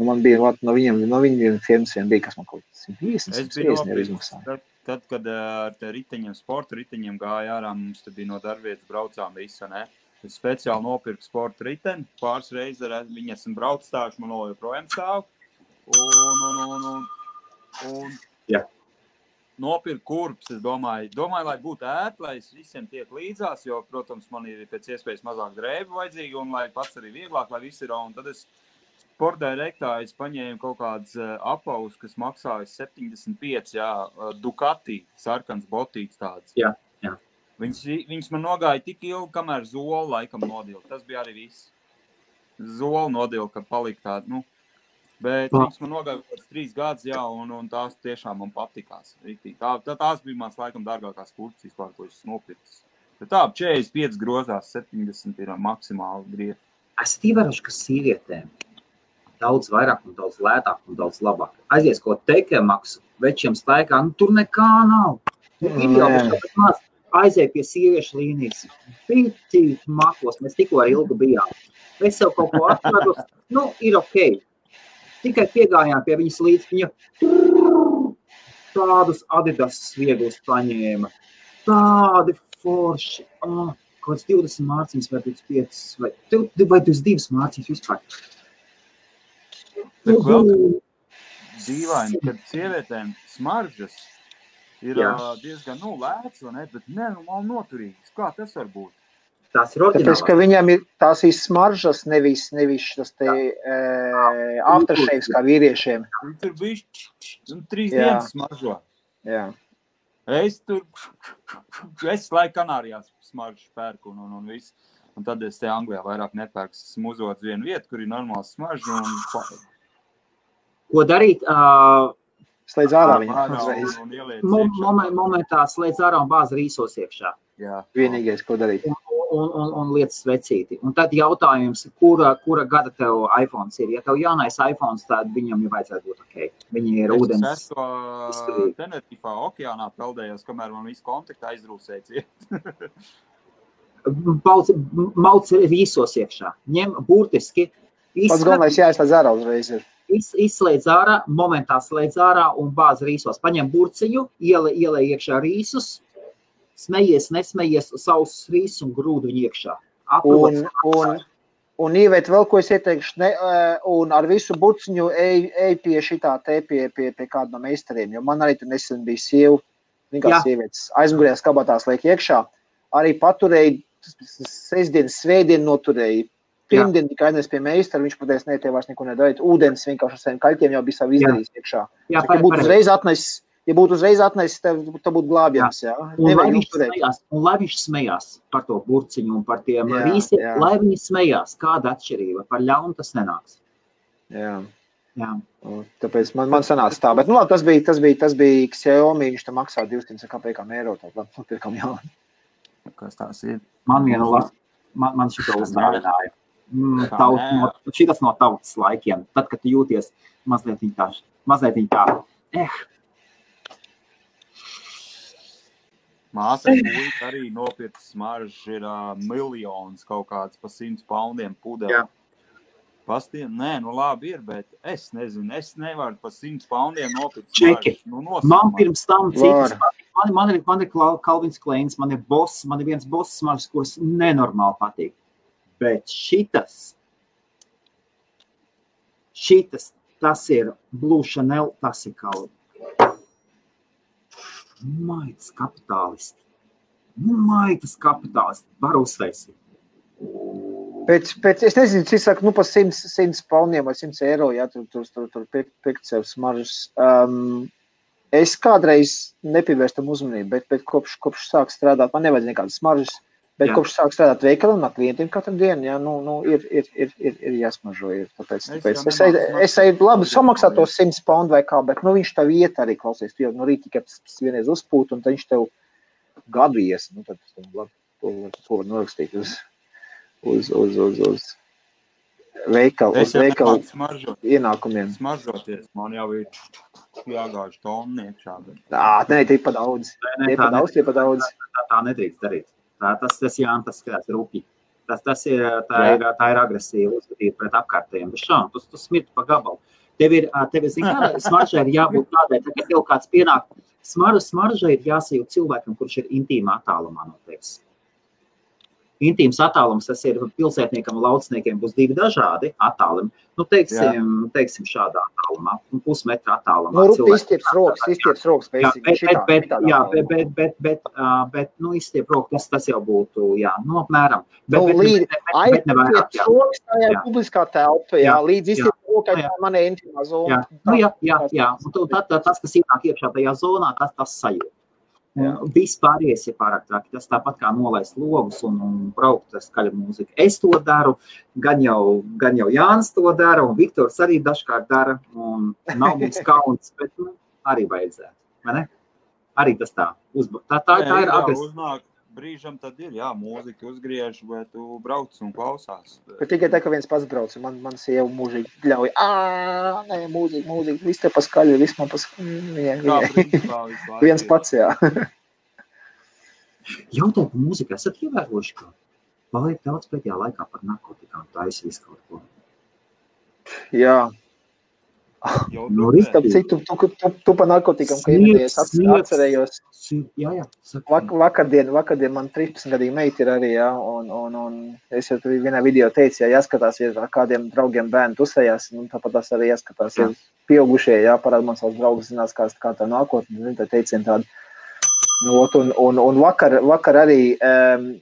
Man bija, no viņiem firmas vien bija, kas man kaut 150 ir izmaksāja. Tad, kad ar riteņiem, sporta riteņiem gāja ārā, mums te bija no darbvietas braucām visa, ne? Es speciāli nopirku sporta riteni, pāris reizes ar viņu esmu brauc stāvuši, man joprojām stāv. Un nopirku kurpes, es domāju, lai būtu ērti, lai es visiem tiek līdzās, jo, protams, man ir pēc iespējas mazāk drēbu vajadzīgi, un lai pats arī vieglāk, lai viss ir, un tad es Sportdirektā es paņēmu kaut kādas apavus, kas maksāja 75, Ducati, sarkans botīts tāds. Jā. Viņas man nogāja tik ilgi, kamēr zoli laikam nodila. Tas bija arī viss. Zoli nodila, ka palika tāda, bet viņas man nogāja pēc 3 gadus, jā, un tās tiešām man patikās. Tās bija mans laikam dārgākās kurces vispār, ko es nopircis. Bet tā, 45 grozās, 70 ir maksimāli grieži. Esat ievērojuši, ka sievietēm daudz vairāk un daudz lētāk un daudz labāk. Aizies, ko teikē maksu, večiem staigā, tur nekā nav. Ir jau bet maz aizēja pie sieviešu līnijas. Pitīt makos, mēs tikko ar Ilgu bijām. Es sev kaut ko atradu, ir ok. Tikai piegājām pie viņas līdz, viņa tādus Adidas vieglus paņēma. Tādi forši. Kaut kāds 20 mārciņas vai 25 vai 22 mārciņas vispār. Bet vēl dīvaini, kad sievietēm smaržas ir diezgan lēts, vai ne? Bet noturīgas. Kā tas var būt? Tās ir oriģinālās. Tāpēc, ka viņam ir tās smaržas, nevis tas te aftershaves kā vīriešiem. Tur bija 3 dienas smaržo. Jā. Es laiku Kanārijās smaržu pērku un viss. Un tad es te Anglijā vairāk nepērku. Esmu uzvots vienu vietu, kur ir normāls smaržu un... Ko darīt? Slēdz ārā viņam uzreiz. Momentā slēdz ārā un bāz rīsos iekšā. Jā. Vienīgais, ko darīt. Un lietas svecīti. Un tad jautājums, kura gada tev iPhones ir? Ja tev jaunais iPhones, tad viņam jau vajadzētu būt ok. Viņi ir ūdens. Es Tenerifā okeānā peldējos, kamēr man visu kontaktu aizdrūsēja ciet. Mauc rīsos iekšā. Ņem burtiski. Pats galvenais jāizslēdz ārā uzreiz ir. Izslēdz ārā, momentā slēdz ārā un bāz rīsos. Paņem burciņu, ielē iekšā rīsus, smejies, nesmejies, sausus rīsus un grūdu viņu iekšā. Un Īvēt, vēl ko es ieteikšu, un ar visu burciņu ej pie šitā te, pie kāda no meistariem, jo man arī tur nesen bija sieva, vienkārši sievietes aizmugurējās kabatās liek iekšā, arī paturēja sestdienas, svētdienu noturēja. Pirmdien tikai aiznes pie meistara, viņš pateica, ne, tev vairs neko nedarīt. Ūdens vienkārši ar saviem kaļķiem jau bija savu izdarījis iekšā. Ja būtu uzreiz atnesis, tev būtu glābjams, jā. Un lai viņš smējās par to burciņu un par tiem rīsiem, lai viņi smējās, kāda atšķirība, par ļaunu tas nenāks. Jā. Tāpēc man sanāca tā, bet tas bija Xiaomi, viņš tam maksā 200 kapekām eiro, tad pirkam jaunu. Kas tās ir? Man šito uzdāvināja. Šitas no tautas laikiem. Tad, kad tu jūties mazliet tā. Māsa puika arī nopirka smaržas, ir miljonus kaut kāds pa 100 poundiem pudeli. Pastiem? Nē, labi ir, bet es nezinu, es nevaru pa 100 poundiem nopirkt smaržas. Man pirms tam citas. Man ir Calvins Kleins, man ir Boss, man ir viens Boss smaržas, kuras nenormāli patīk. Bet šitas, tas ir Blue Chanel, tas ir Calvin. Maitas kapitālisti. Var uztaisīt. Pēc es nezinu, cik saka, pa 100 poundiem vai 100 eiro, ja tur pirkt sev smaržas. Es kādreiz nepievērstam uzmanību, bet kopš sāk strādāt, man nevajadz nekādas smaržas. Bet kopš sāk strādāt veikalā un ar klientiem katru dienu, ir jāsmažo. Tāpēc es eju labi samaksā to 100 poundu vai kā, bet viņš tev iet arī klausies. Tu jau rīt tikai vienreiz uzpūt un tad viņš tev gadu ies. Tad to var norakstīt uz veikalu ienākumiem. Smaržoties, man jau ir jāgāž tonu iekšā. Nē, tie pa daudz. Tie pa daudz. Tā nedrīkst darīt. Tas skatās rūpīgi. Tā ir agresīva uzvedība pret apkārtējiem. Bet šām, tu smirti pa gabalu. Tev ir, smaržai ir jābūt tādai, ka tev kāds pienāk. Smaržai ir jāsajūt cilvēkam, kurš ir intīmā attālumā no tevis. Intīms attālums, tas ir pilsētniekam un laucniekiem būs 2 dažādi attālumi. Teiksim šādā attālumā, pusmetra attālumā. Izstieps rokas, bet izstiep rokas, tas jau būtu, apmēram. Bet aizstiep rokas, tā ir publiskā telpa, līdz izstiep rokai, tā manē intimā zona. Jā. Un tad tas, kas ienāk iekšā tajā zonā, tas sajūt. Viss pārējais ir pārāk traki. Tas tāpat kā nolaist logus un braukt ar skaļu mūziku. Es to daru, gan jau Jānis to dara, un Viktors arī dažkārt dara, un nav mums kauns, bet arī vajadzētu, vai ne? Arī tas tā. Tā ir agresīva. Uznāk brīžam tad ir, mūzika uzgriež, bet tu brauc un klausās. Bet tikai tā, ka viens pats brauc, man sieva mūžīgi ļauj, nē, mūzika, viss te paskaļi, viss man paskaļi. Viens pats, jā. Jautāju par mūziku, esat ievērojuši, ka paliek daudz pēdējā laikā par narkotikām, taisa visu kaut ko? Jā. Tāpēc citu, tu pa narkotikam, ka ieviedies, atcerējos. Jā. Vakardien man 13-gadīga meita ir arī, un es jau tur vienā video teicu, jāskatās, ar kādiem draugiem bērni tusējās, un tāpat tas arī jāskatās, pieaugušie, parāda man savus draugus, zinās, kā tā nākotne, tā teicien tāda. Un vakar arī,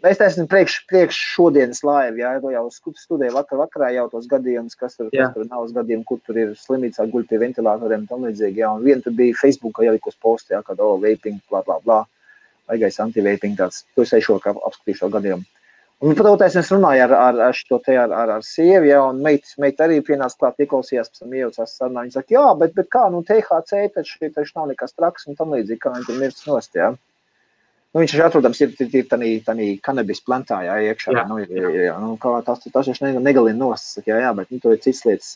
es esmu priekš šodienas laivu, jau studēju vakarā jau tos gadījumus, kas tur nav uz gadījumu, kur tur ir slimīts, guļ pie ventilatoriem, tam līdzīgi, un vien tur bija Facebookā ielikus posti, kad vaping, blā, vaigais anti-vaping tāds, to es eju kā apskatīšu šo gadījumu. Un patautais es runāju ar sievi, un meita arī pienāca klāt, ieklausījās, pēc tam iejaucās sarunā, viņa saka, bet kā, THC taču nav nekas traks, un tam līdzīgi, kā viņi tur mirst nost, viņš atrodams ir tādā kanabis plantā, iekšā, tas taču negalina nost, bet tur ir cits lietas.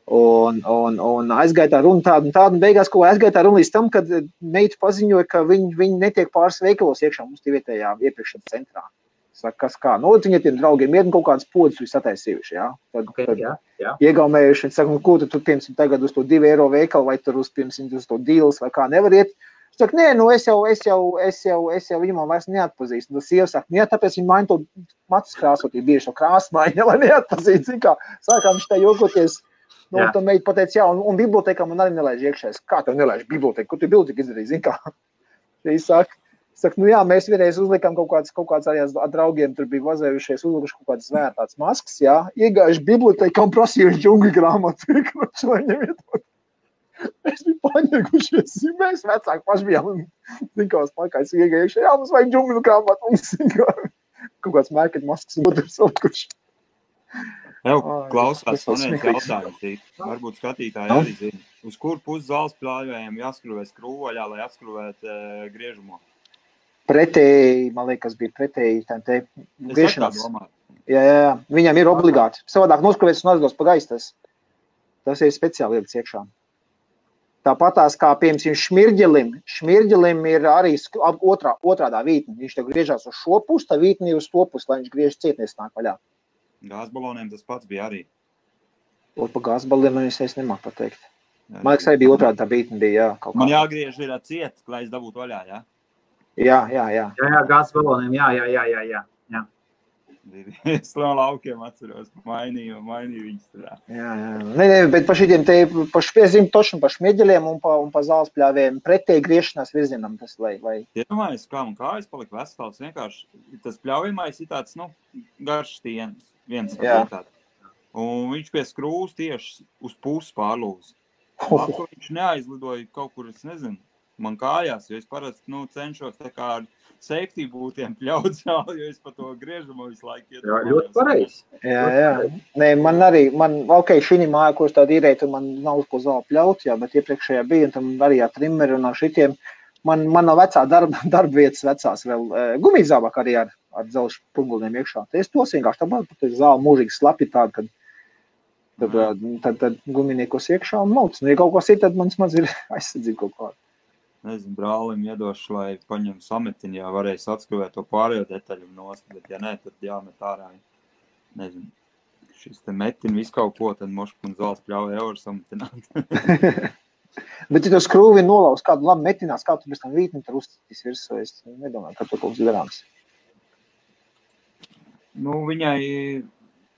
Un aizgāja tā runa tādu, un beigās, ko aizgāja tā runa līdz tam, kad meita paziņoja, ka viņi netiek pāris veikalos iekšā mums tie vietējā iepirkšanas centrā. Saka, kas kā, viņi tiem draugiem ir kaut kādas podas viņi sataisījuši, Tad iegaumējuši, viņi saka, ko tu piemēram tagad uz to 2 eiro veikalu, vai tur uz to dīles, vai kā nevar iet. Es saku, nē, es jau viņu man vairs neatpazīstu. Un sieva saka, tāpēc viņi maina to matus krāsot, ir bieži to krāsmaiņa, lai neatpazītu, zin kā. Sākām viņš tā jokoties, un tā meita pateica, un bibliotekā man arī nelaiž iekšēs. Kā tev nelaiž biblioteku? Ko tu biblioteka izdarīji, zin kā? Viņš saka, mēs vienreiz uzlikām kaut kāds arī ar draugiem, tur bija vazējušies, uzlikuši kaut kādas vērtātas maskas, iegājuši biblioteka un prasījuši džungļu grāmatu, lai ņemiet. Mēs biju paņēgušies, mēs vecāki paši bijām, zinkās pakais iegājuši, mums vajag džungļu grāmatu, mums kaut kāds mērķet maskas un otrs salikuši. Klausās, man viens jautājums, varbūt skatītāji arī zina, uz kur pusi zāles pļāvējiem jāskruvē skrūvaļā, lai atskruvētu griežumu? Pretēji, man liekas, bija pretēji griešanas. Jā, viņam ir obligāti. Savādāk noskruvēts un atgos pa gaistas. Tas ir speciāli lietas iekšā. Tāpatās kā, piemēram, šmirģelim ir arī otrādā vītne. Viņš tev griežās uz šo pusi, tā vītne ir uz to pusi, lai viņš griež cietnies nāk vaļā. Gāzbaloniem tas pats bija arī. Pa gāzbaloniem es nemāku pateikt. Man liekas, arī bija otrādā tā vītne bija, Man jāgriež ir ciet, lai es dabūtu vaļā, Jā, gāzbaloniem, jā. Es no laukiem atceros, mainīju viņus tur. Jā. Bet pa šitiem te, tošam pa šmieģeļiem un pa zāles pļāvējiem pretēji griešanās virzienam tas, lai... Iedomājies, kā man kājas palika vesels, vienkārši tas pļaujamais ir tāds, garš stiens, viens vietāt. Un viņš pie skrūvas tieši uz pusi pārlūz. Viņš neaizlidoja kaut kur, es nezinu, man kājās, jo es parasti, cenšos tā kā ar safety būtiem pļaut zāli, jo es pa to griežumu visu laiku iedomājos. Jā, ļoti pareizi. Jā. Nē, šī māja, ko es tādu īrēju, man nav uz ko zāli pļaut, bet iepriekšējā bija, un tam arī ar trimeri un ar šitiem. Man nav vecā darba vietas vecās vēl gumijzābāk arī ar dzelžu punguliem iekšā. Es tos vienkārši tāpēc zāli mūžīgi slapi tādu, kad tad guminiekos iekšā un mauc. Ja kaut kas ir, tad mans maz ir aizsardzība kaut kāda. Nezinu, brālim iedošu, lai paņem sametiņu, varēs atskruvēt to pārējo detaļu nost, bet ja nē, tad jāmet ārā. Nezinu, šis te metin visu kaut ko, tad moška un zāles pļauja euru sametināt. Bet ja tu skrūvi nolauz kādu labi metinās, kā tu pēc tam vītni tur uzstitīs virsū, es nedomāju, ka tu kaut kas darāms.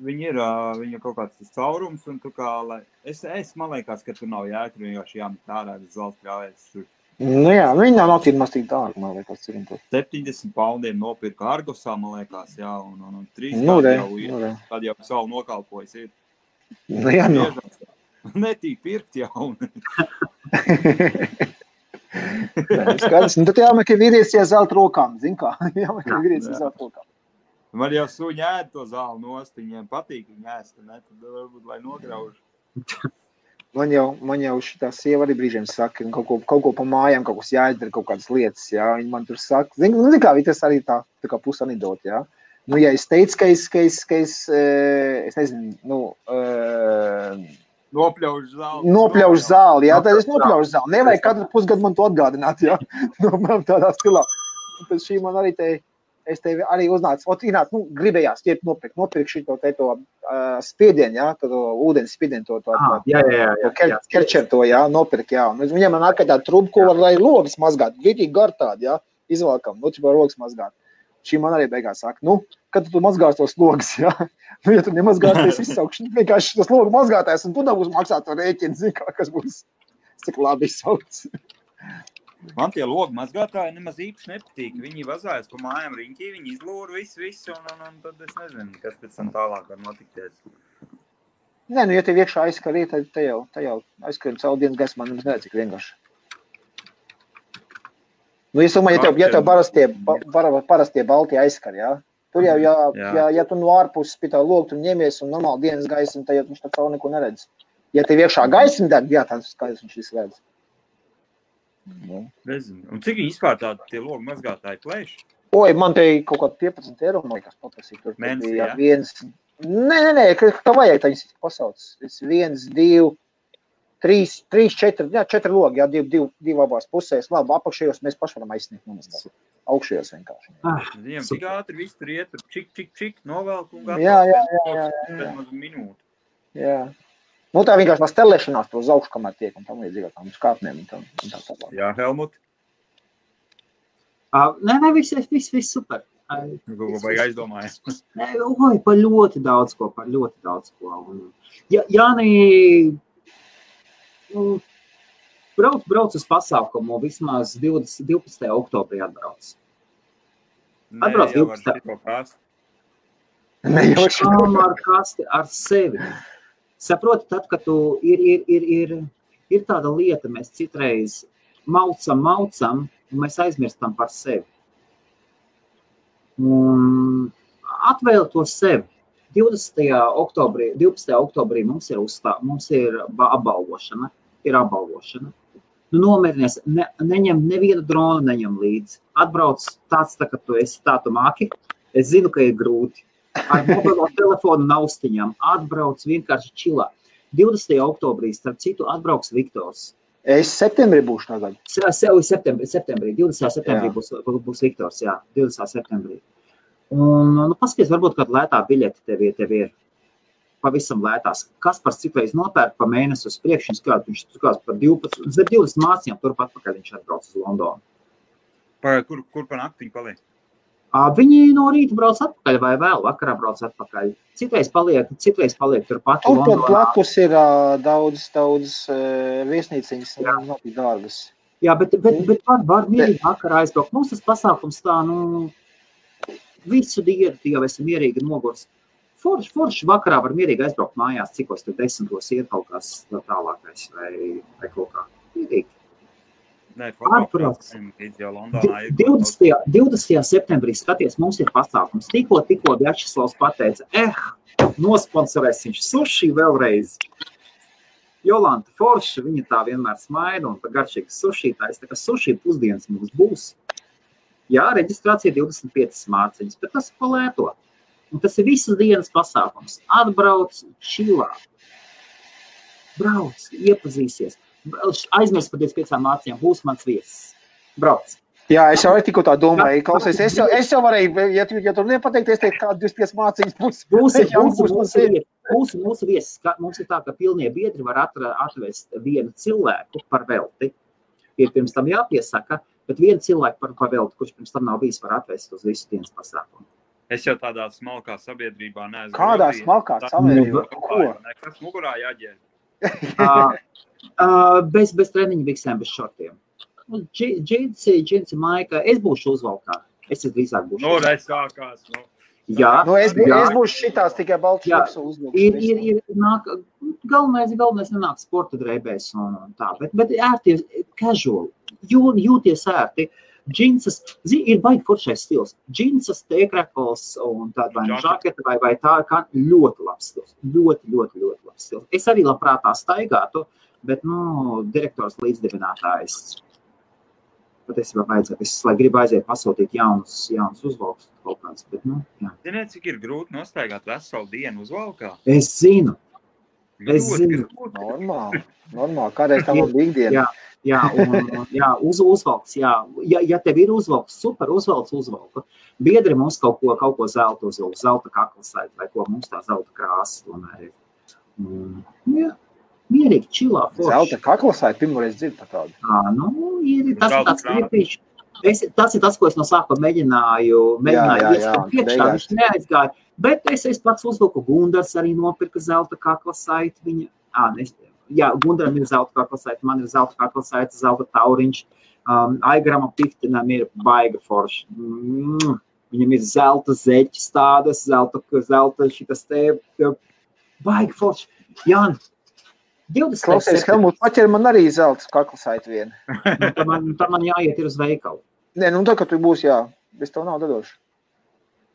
Viņa kaut kāds tas caurums, un tu kā, man liekas, ka tur nav jēga, tur vienkārši jāmet ārā, bez zāles pļaujas tur. Jā, viņa nav tīri maz tik dārga, man liekas, cik tur. 70 poundiem nopirka Argosā, man liekas, un 3 gadi jau ir, tad jau savu nokalpojas ir. Jā, Netī pirkt jauni. Skaidrs. Tad jāmēr, ka vīrietis iezelt rokām, zin kā? Jāmēr, ka vīrietis iezelt rokām. Man jau suņi ēd to zāli nost, viņiem patīk viņi ēst, ne? Tad varbūt, lai nograuž. Man jau šitā sieva arī brīžiem saka, kaut ko pa mājām, kaut kas jāizdara, kaut kādas lietas, jā. Viņi man tur saka, zin kā, tas arī tā kā pusanidot, jā. Nu, ja es teicu, ka es nezinu, Nopļaužu zāli, jā, tad es nopļaužu zāli. Nevajag katru pusgadu man to atgādināt, jā. Tādā stilā. Pēc šī man arī es tevi arī uznācu. Ināt, gribējās nopirkt šito spiedienu, jā, to ūdens spiedienu, kerčer to, jā, nopirkt, jā. Viņam man ārkārt tāda truba, ko var, lai logas mazgāt, gritīgi gar tādi, jā, izvalkam, var logas mazgāt. Šī man arī beigās saka, kad tu mazgās tos logas, jā? Ja tu nemazgās, tad es izsaukšu vienkārši tos logu mazgātājs, un tu nebūs maksāt to rēķinu, zin kā, kas būs cik labi izsauc. Man tie logu mazgātāji nemaz īpaši nepatīk. Viņi vazājas pa mājām riņķī, viņi izlūra visu, un tad es nezinu, kas pēc tam tālāk var notikties. Nē, ja tev iekšā aizskarī, tad te jau aizskarim caur dienas gaismā, nemaz nedz, cik vienkārši. Es domāju, ja tev parastie balti aizskar, jā? Tur jau, ja tu no ārpuses pie tā logu, tu ņemies un normāli dienas gaismu, tad jau viņš tā caur neko neredz. Ja tev iekšā gaismu deg, jā, tad skaidrs viņš visu redz. Nezinu. Un cik viņi vispār tie logu mazgātāji plēš? Man te kaut kā 15 eiro, man liekas, paprasīt. Mēnesī, jā? Nē, kā vajag, tā viņas pasauc. 1, 2, 3, 4, 4 logi, jā, 2 abās pusēs. Labi, apakšējos mēs paši varam aizsniegt nomazgāt. Augšējos vienkārši. Viņiem tik ātri viss tur iet, čik, novelk un gatavs. Jā. Minūti. Jā. Tā vienkārši tā stelēšanās to uz augšu, kamēr tiek, un tam līdzīgā tām skāpnēm un tā tālāk. Jā, Helmut? Nē, viss super. Ko vajag aizdomājas? Par ļoti daudz ko. Jāni, brauc uz pasākumu, vismaz 12. oktobrī atbrauc. Atbrauc 12. Ar kasti ar sevi. Saproti, tad, kad tu ir tāda lieta, mēs citreiz maucam, un mēs aizmirstam par sevi. Un atvēl to sevi. 12. oktobrī mums ir apbalvošana. Nomierinies, neņem nevienu dronu, neņem līdzi. Atbrauc tāds, ka tu esi tā, tu māki. Es zinu, ka ir grūti. Ar mobilo telefonu naustiņām atbrauc vienkārši čilā. 20. oktobrī, starp citu, atbrauks Viktors. Es septembrī būšu tagad. Septembrī, 20. septembrī būs Viktors, jā, 20. septembrī. Un, paskaties, varbūt kāda lētā biļete tev ir pavisam lētās. Kaspars citreiz nopērk pa mēnesi uz priekšu, viņš tukās par 20 mācījām, turpat pakaļ viņš atbrauc uz Londonu. Kur pa naktiņu paliek? Viņi no rīta brauc atpakaļ vai vēl vakarā brauc atpakaļ. Citreiz paliek turpat Londonā. Tur blakus ir daudz viesnīciņas, nav tik dārgas. Jā, bet var mierīgi vakarā aizbraukt. Mums tas pasākums tā, visu dienu jau esam mierīgi nogurs. Forši vakarā var mierīgi aizbraukt mājās, cikos te 10 iet kaut kas tālākais vai kaut kā. Mierīgi. Atbrauc. 20. septembrī skaties, mums ir pasākums. Tikko Vjačeslavs pateica, nosponsorēs viņš suši vēlreiz. Jolanta forša, viņa tā vienmēr smaida un par garšīgas sušītājs. Tā kā suši pusdienas mums būs. Jā, reģistrācija 25 mārciņas, bet tas ir palēto. Un tas ir visas dienas pasākums. Atbrauc čilā. Brauc, iepazīsies. Aizmirst par 25 mārciņām, būs mans viesis. Brauc. Jā, es jau tikko tā domāju. Klausies, es jau varēju, ja tu nepateikties, teikt, kāda 25 māciņas būs. Mūsu viesis, mums ir tā, ka pilnie biedri var atvest vienu cilvēku par velti. Ir pirms tam jāpiesaka, bet vienu cilvēku par velti, kurš pirms tam nav bijis, var atvest uz visu dienas pasākumu. Es jau tādā smalkā sabiedrībā neesmu. Kādā smalkā sabiedrībā? Ko? Kas mugurā jāģēr? Bez treniņa biksēm, bez šortiem. Džinsi, maika, es būšu uzvalkā. Es drīzāk būšu uzvalkā. Es sākās, Jā. Es būšu šitās tikai balts šoks uzvalkā. Galvenais nenāk sporta drēbēs un tā, bet ērti casual. jūties ērti. Džinsas, ir baigi foršais stils. Džinsas, tēkrekls un tāda vai žaketa vai tā kā ļoti labs stils. Ļoti labs stils. Es arī labprāt tā staigātu, bet, direktors līdzdibinātājs patiesībā vajadzētu. Es, lai gribu aiziet pasūtīt jaunus uzvalkus kaut kāds, bet, jā. Ziniet, cik ir grūti nostaigāt veselu dienu uzvalkā? Es zinu. Normāli. Kādreiz tā man bija ikdiena. Jā, uzvalks, jā. Ja tev ir uzvalks, super, uzvalku. Biedri mums kaut ko zelta uzvalku, zelta kaklasaiti, vai ko mums tā zelta krāsa tomēr ir. Jā, mierīgi, čilā, forši. Zelta kaklasaiti, pirmoreiz dzird par tādu. Tas ir tāds kriepīši. Tas ir tas, ko es no sākuma mēģināju ieskatīt priekšā, viņš neaizgāja. Bet es pats uzvilku, Gundars arī nopirka zelta kaklasaiti, viņa, Gundaram ir zelta kaklasaiti, man ir zelta kaklasaiti, zelta tauriņš, Aigarama Piftinam ir baiga forši. Viņam ir zelta zeķis tādas, zelta šitas te, baiga forši. Jāni, 20. Klausies, Helmut, paķer man arī zelta kaklasaiti vienu. Tā man jāiet ir uz veikalu. Nē, tā, ka tu būs, bez tev nav dadošu.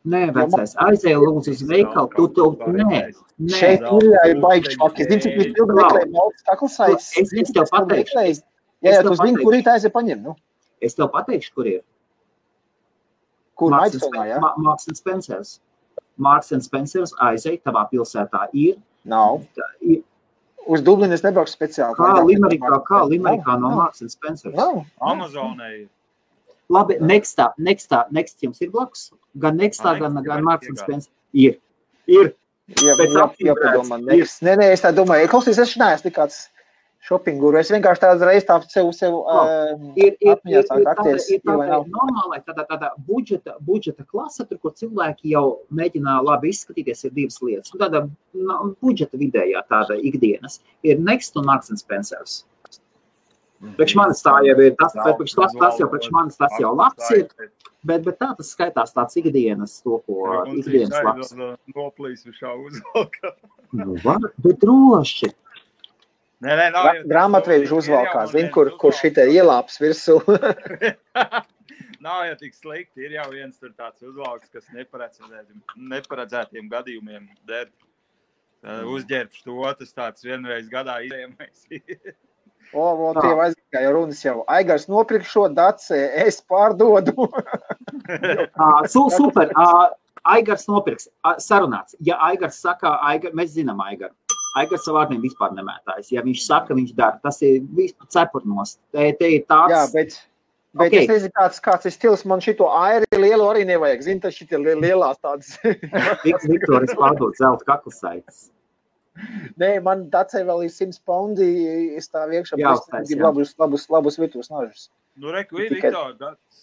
Nē, vecais, aizēja lūdzu uz veikalu, nē. Šeit ir baigi švaki. Es zinu, cik jūs ilgi meklēju maltas kaklasaits. Es tev pateikšu. Jā, tu zini, kur tā aiziet paņem, Es tev pateikšu, kur ir. Kur Maidstone, jā? Marks & Spencers. Marks & Spencers aiziet tavā pilsētā ir. Nav. Uz Dublinu es nebraukšu speciāli. Kā Limerikā no Marks & Spencers. Nav. Amazonē ir. Labi, Next jums ir blakus? Gan Nextā, gan Marks & Spencers. Ir. Jāpadomā, Next. Nē, es tā domāju. Klausies, es neesmu tik kāds shopping guru. Es vienkārši tādu reizi sev atmiņā sāk akties. Ir normālai tāda budžeta klasa, tur, kur cilvēki jau mēģina labi izskatīties, ir divas lietas. Tāda budžeta vidējā tāda ikdienas ir Next un Marks & Spencers. Priekš manis tā jau ir, priekš manis tas jau labs ir, bet tā tas skaitās tāds ikdienas, to, ko ikdienas labs. Noplīs višā uzvalkā. Bet droši. Grāmatveidžu uzvalkā, zin, kur šitie ielāps virsū. Nav jau tik slikti, ir jau viens tur tāds uzvalks, kas neparedzētiem gadījumiem der. Uzģērbš to, tas tāds vienreiz gadā izējamais ir. Tie aizgāja runas jau. Aigars nopirk šo daci, es pārdodu. Super. Aigars nopirks. Sarunāts. Ja Aigars saka, mēs zinām Aigaru. Aigars savu vārdiem vispār nemētājas. Ja viņš saka, viņš dara. Tas ir vispār cepurnos. Te ir tāds... Jā, bet es nezinu, kāds ir stils. Man šito airi lielu arī nevajag. Zini, tas šitie lielās tādas... Viktoris pārdod zelta kaklasaitas. Nē, man dacei vēl ir 100 poundi, es tā viekšā gribu labus virtuves nažus. Reku, Viktor,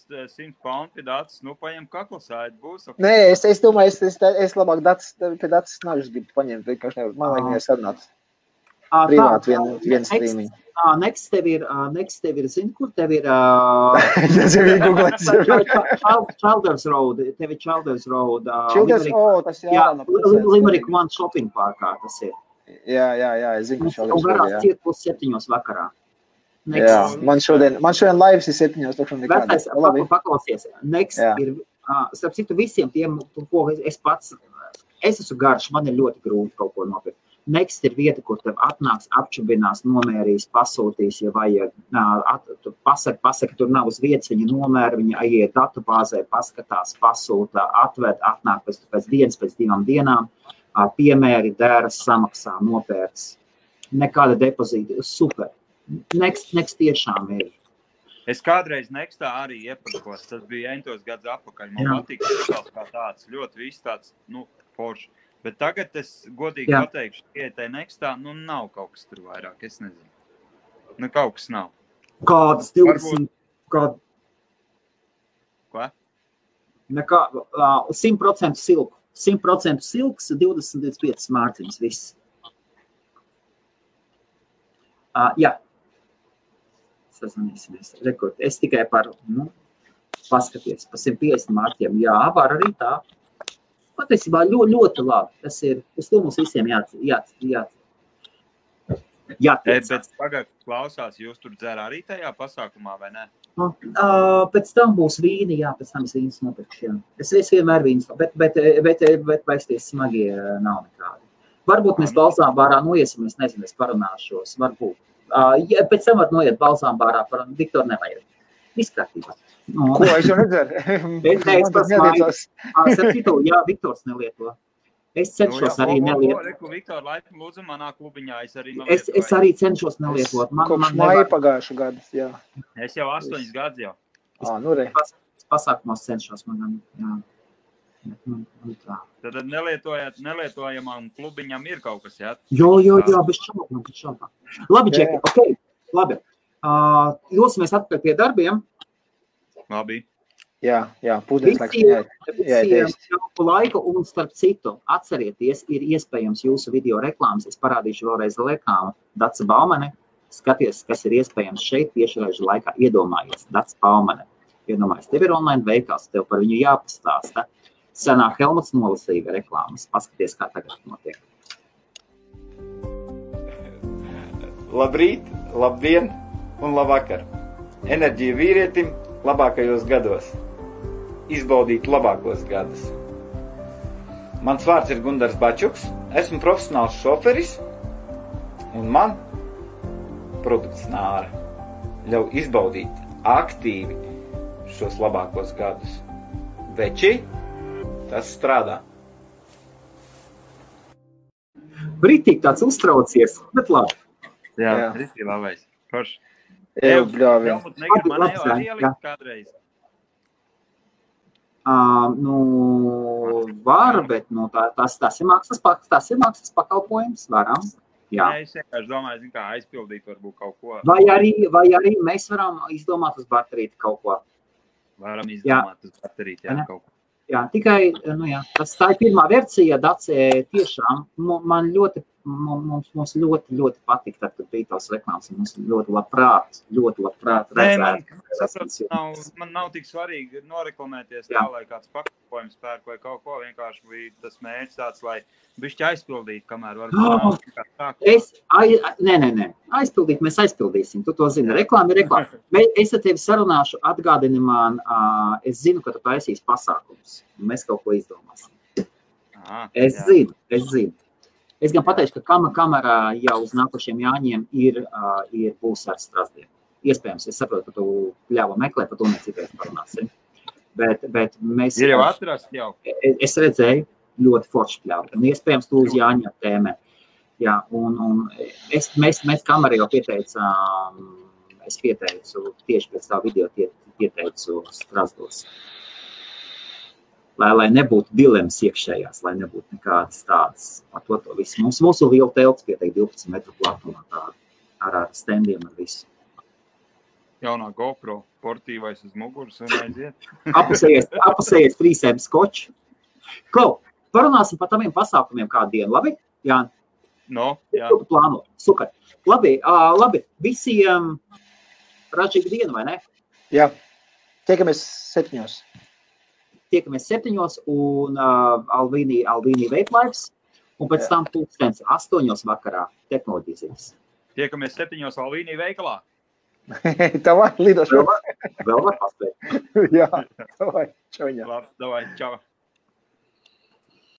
100 poundi dacis, paņem kaklasādi, būs. Nē, es domāju, es labāk pie dacis nažus gribu paņemt, vienkārši nevar, man vajag viņai sarunāt. Privāti viens streaming. Next tev ir, zini, kur tev ir... Childers Road, tev ir Childers Road. Tas ir Limerick One Shopping Parkā tas ir. Jā, es zinu, Childers Road, jā. Varās ciet pus 7 vakarā. Jā, man šodien laivs ir 7, tukšam nekādi. Paklausies, Next ir, starp citu visiem tiem, ko es pats, es esmu garš, man ir ļoti grūti kaut ko nopirkt. Next ir vieta, kur tev atnāks, apčubinās, nomērīs, pasūtīs, ja vajag, pasaka, tur nav uz vietas, viņa nomēra, viņa aiziet datubāzē, paskatās, pasūta, atved, atnāk pēc dienas, pēc 2 dienām, piemēri, dēras, samaksā, nopērts. Nekāda depozīta, super. Next tiešām ir. Es kādreiz Nextā arī iepirkos, tas bija 8 gadus atpakaļ, man patīk kā tāds, ļoti viss tāds, forši. Bet tagad es godīgi pateikšu, ka tai Nextā, nav kaut kas tur vairāk, es nezinu. Kaut kas nav. Kādas 20? Ko? 100% silku. 100% silks, 25 mārciņas, viss. Jā. Sazvanīsimies. Rekord. Es tikai paskaties, pa 150 mārķiem. Jā, var arī tā. Patiesībā ļoti labi. Tas ir, uz to mums visiem Bet pagad klausās, jūs tur dzer arī tajā pasākumā, vai ne? Pēc tam būs vīni, jā, pēc tam es vīnas nopirkšu, jā. Es vienmēr vīnas, bet vaisties smagie nav nekādi. Varbūt mēs balzām bārā noiesim, es nezinu, es parunāšos, varbūt. Ja, pēc tam var noiet balzām bārā, Viktor nevajag. Izkārtībā. Ko es jau nedzeru? Jā, Viktors nelieto. Es cenšos arī nelietot. Viktor, laipni lūdzu manā klubiņā, es arī nelietot. Es arī cenšos nelietot. Kopš maija pagājušu gadu, jā. Es jau 8 gadus jau. Nu re. Pasākumos cenšos manam, jā. Tad nelietojamam klubiņam ir kaut kas, jā? Jā, bez šaubām. Labi, Džeki, ok, labi. Dosimies atpakaļ pie darbiem. Labi. Jā, pūdens laiks jāēst. Laiku un starp citu, atcerieties, ir iespējams jūsu video reklāmas. Es parādīšu vēlreiz reklāmu. Dace Baumane, skaties, kas ir iespējams šeit tiešraidžu laikā. Iedomājies, Dace Baumane. Iedomājies, tev ir online veikals, tev par viņu jāpastāsta. Senāk Helmuts nolasīja reklāmas. Paskaties, kā tagad notiek. Labrīt, labdien un labvakar. Enerģija vīrietim labākajos gados. Izbaudīt labākos gadus. Mans vārds ir Gundars Bačuks. Esmu profesionāls šoferis. Un man produkts Nāra ļauj izbaudīt aktīvi šos labākos gadus. Veči, tas strādā. Britīgi tāds uztraucies, bet labi. Jā. Britīgi labais. Forši. Bļāvi. Helmut, negri man jau arī ielikt kādreiz. Var, bet tas ir mākslas pakalpojums, varam. Jā. Es vienkārši domāju, kā aizpildīt varbūt kaut ko. Vai arī mēs varam izdomāt uz baterīti kaut ko. Varam izdomāt uz baterīti, jā, kaut ko. Jā, tikai, tā ir pirmā versija, Dace, tiešām, mums ļoti patīk, tad, kad bija tās reklāmas, mums ļoti labprāt redzēt. Man nav tik svarīgi noreklamēties tā, lai kāds pakalpojums pērk vai kaut ko, vienkārši bija tas mērķis tāds, lai bišķi aizpildīt, kamēr varbūt Nē, aizpildīt, mēs aizpildīsim, tu to zini, reklāma ir reklāma. Es ar tevi sarunāšu, atgādini man, es zinu, ka tu taisīs pasākums, un mēs kaut ko izdomāsim. Es zinu. Es gan pateikšu, ka kamera jau uz nākošiem Jāņiem būs ar Strasdien. Iespējams, es saprotu, ka tu ļāva meklēt, par to mēs citreiz parunāsim. Bet mēs... Ir jau atrast jau. Es redzēju ļoti forši pļāvu. Un iespējams, tu uz Jāņa tēmē. Jā, un mēs kamerā jau pieteicām, es pieteicu tieši pēc tā video pieteicu Strasdos. Lai nebūtu dilemmas iekšējās, lai nebūtu nekādas tādas par to visu. Mūsu liela telts pieteikt 12 metru platumā ar standiem ar visu. Jaunā GoPro portīvais uz muguras un aiziet. Apusējies trīsēm skoču. Klau, parunāsim par taviem pasākumiem kādu dienu, labi? Jā. Jā. Plāno. Super. Labi, visiem ražīgu dienu, vai ne? Jā. Tiekamies 7. Tiekamies 7 un Alvīnī veiklaips, un pēc tam 8 vakarā tehnoloģijas. Tiekamies 7 Alvīnī veikalā. Tavai, lidošu. Vēl var paspēt. Jā, tavai, čauņā. Labi, davai, čau.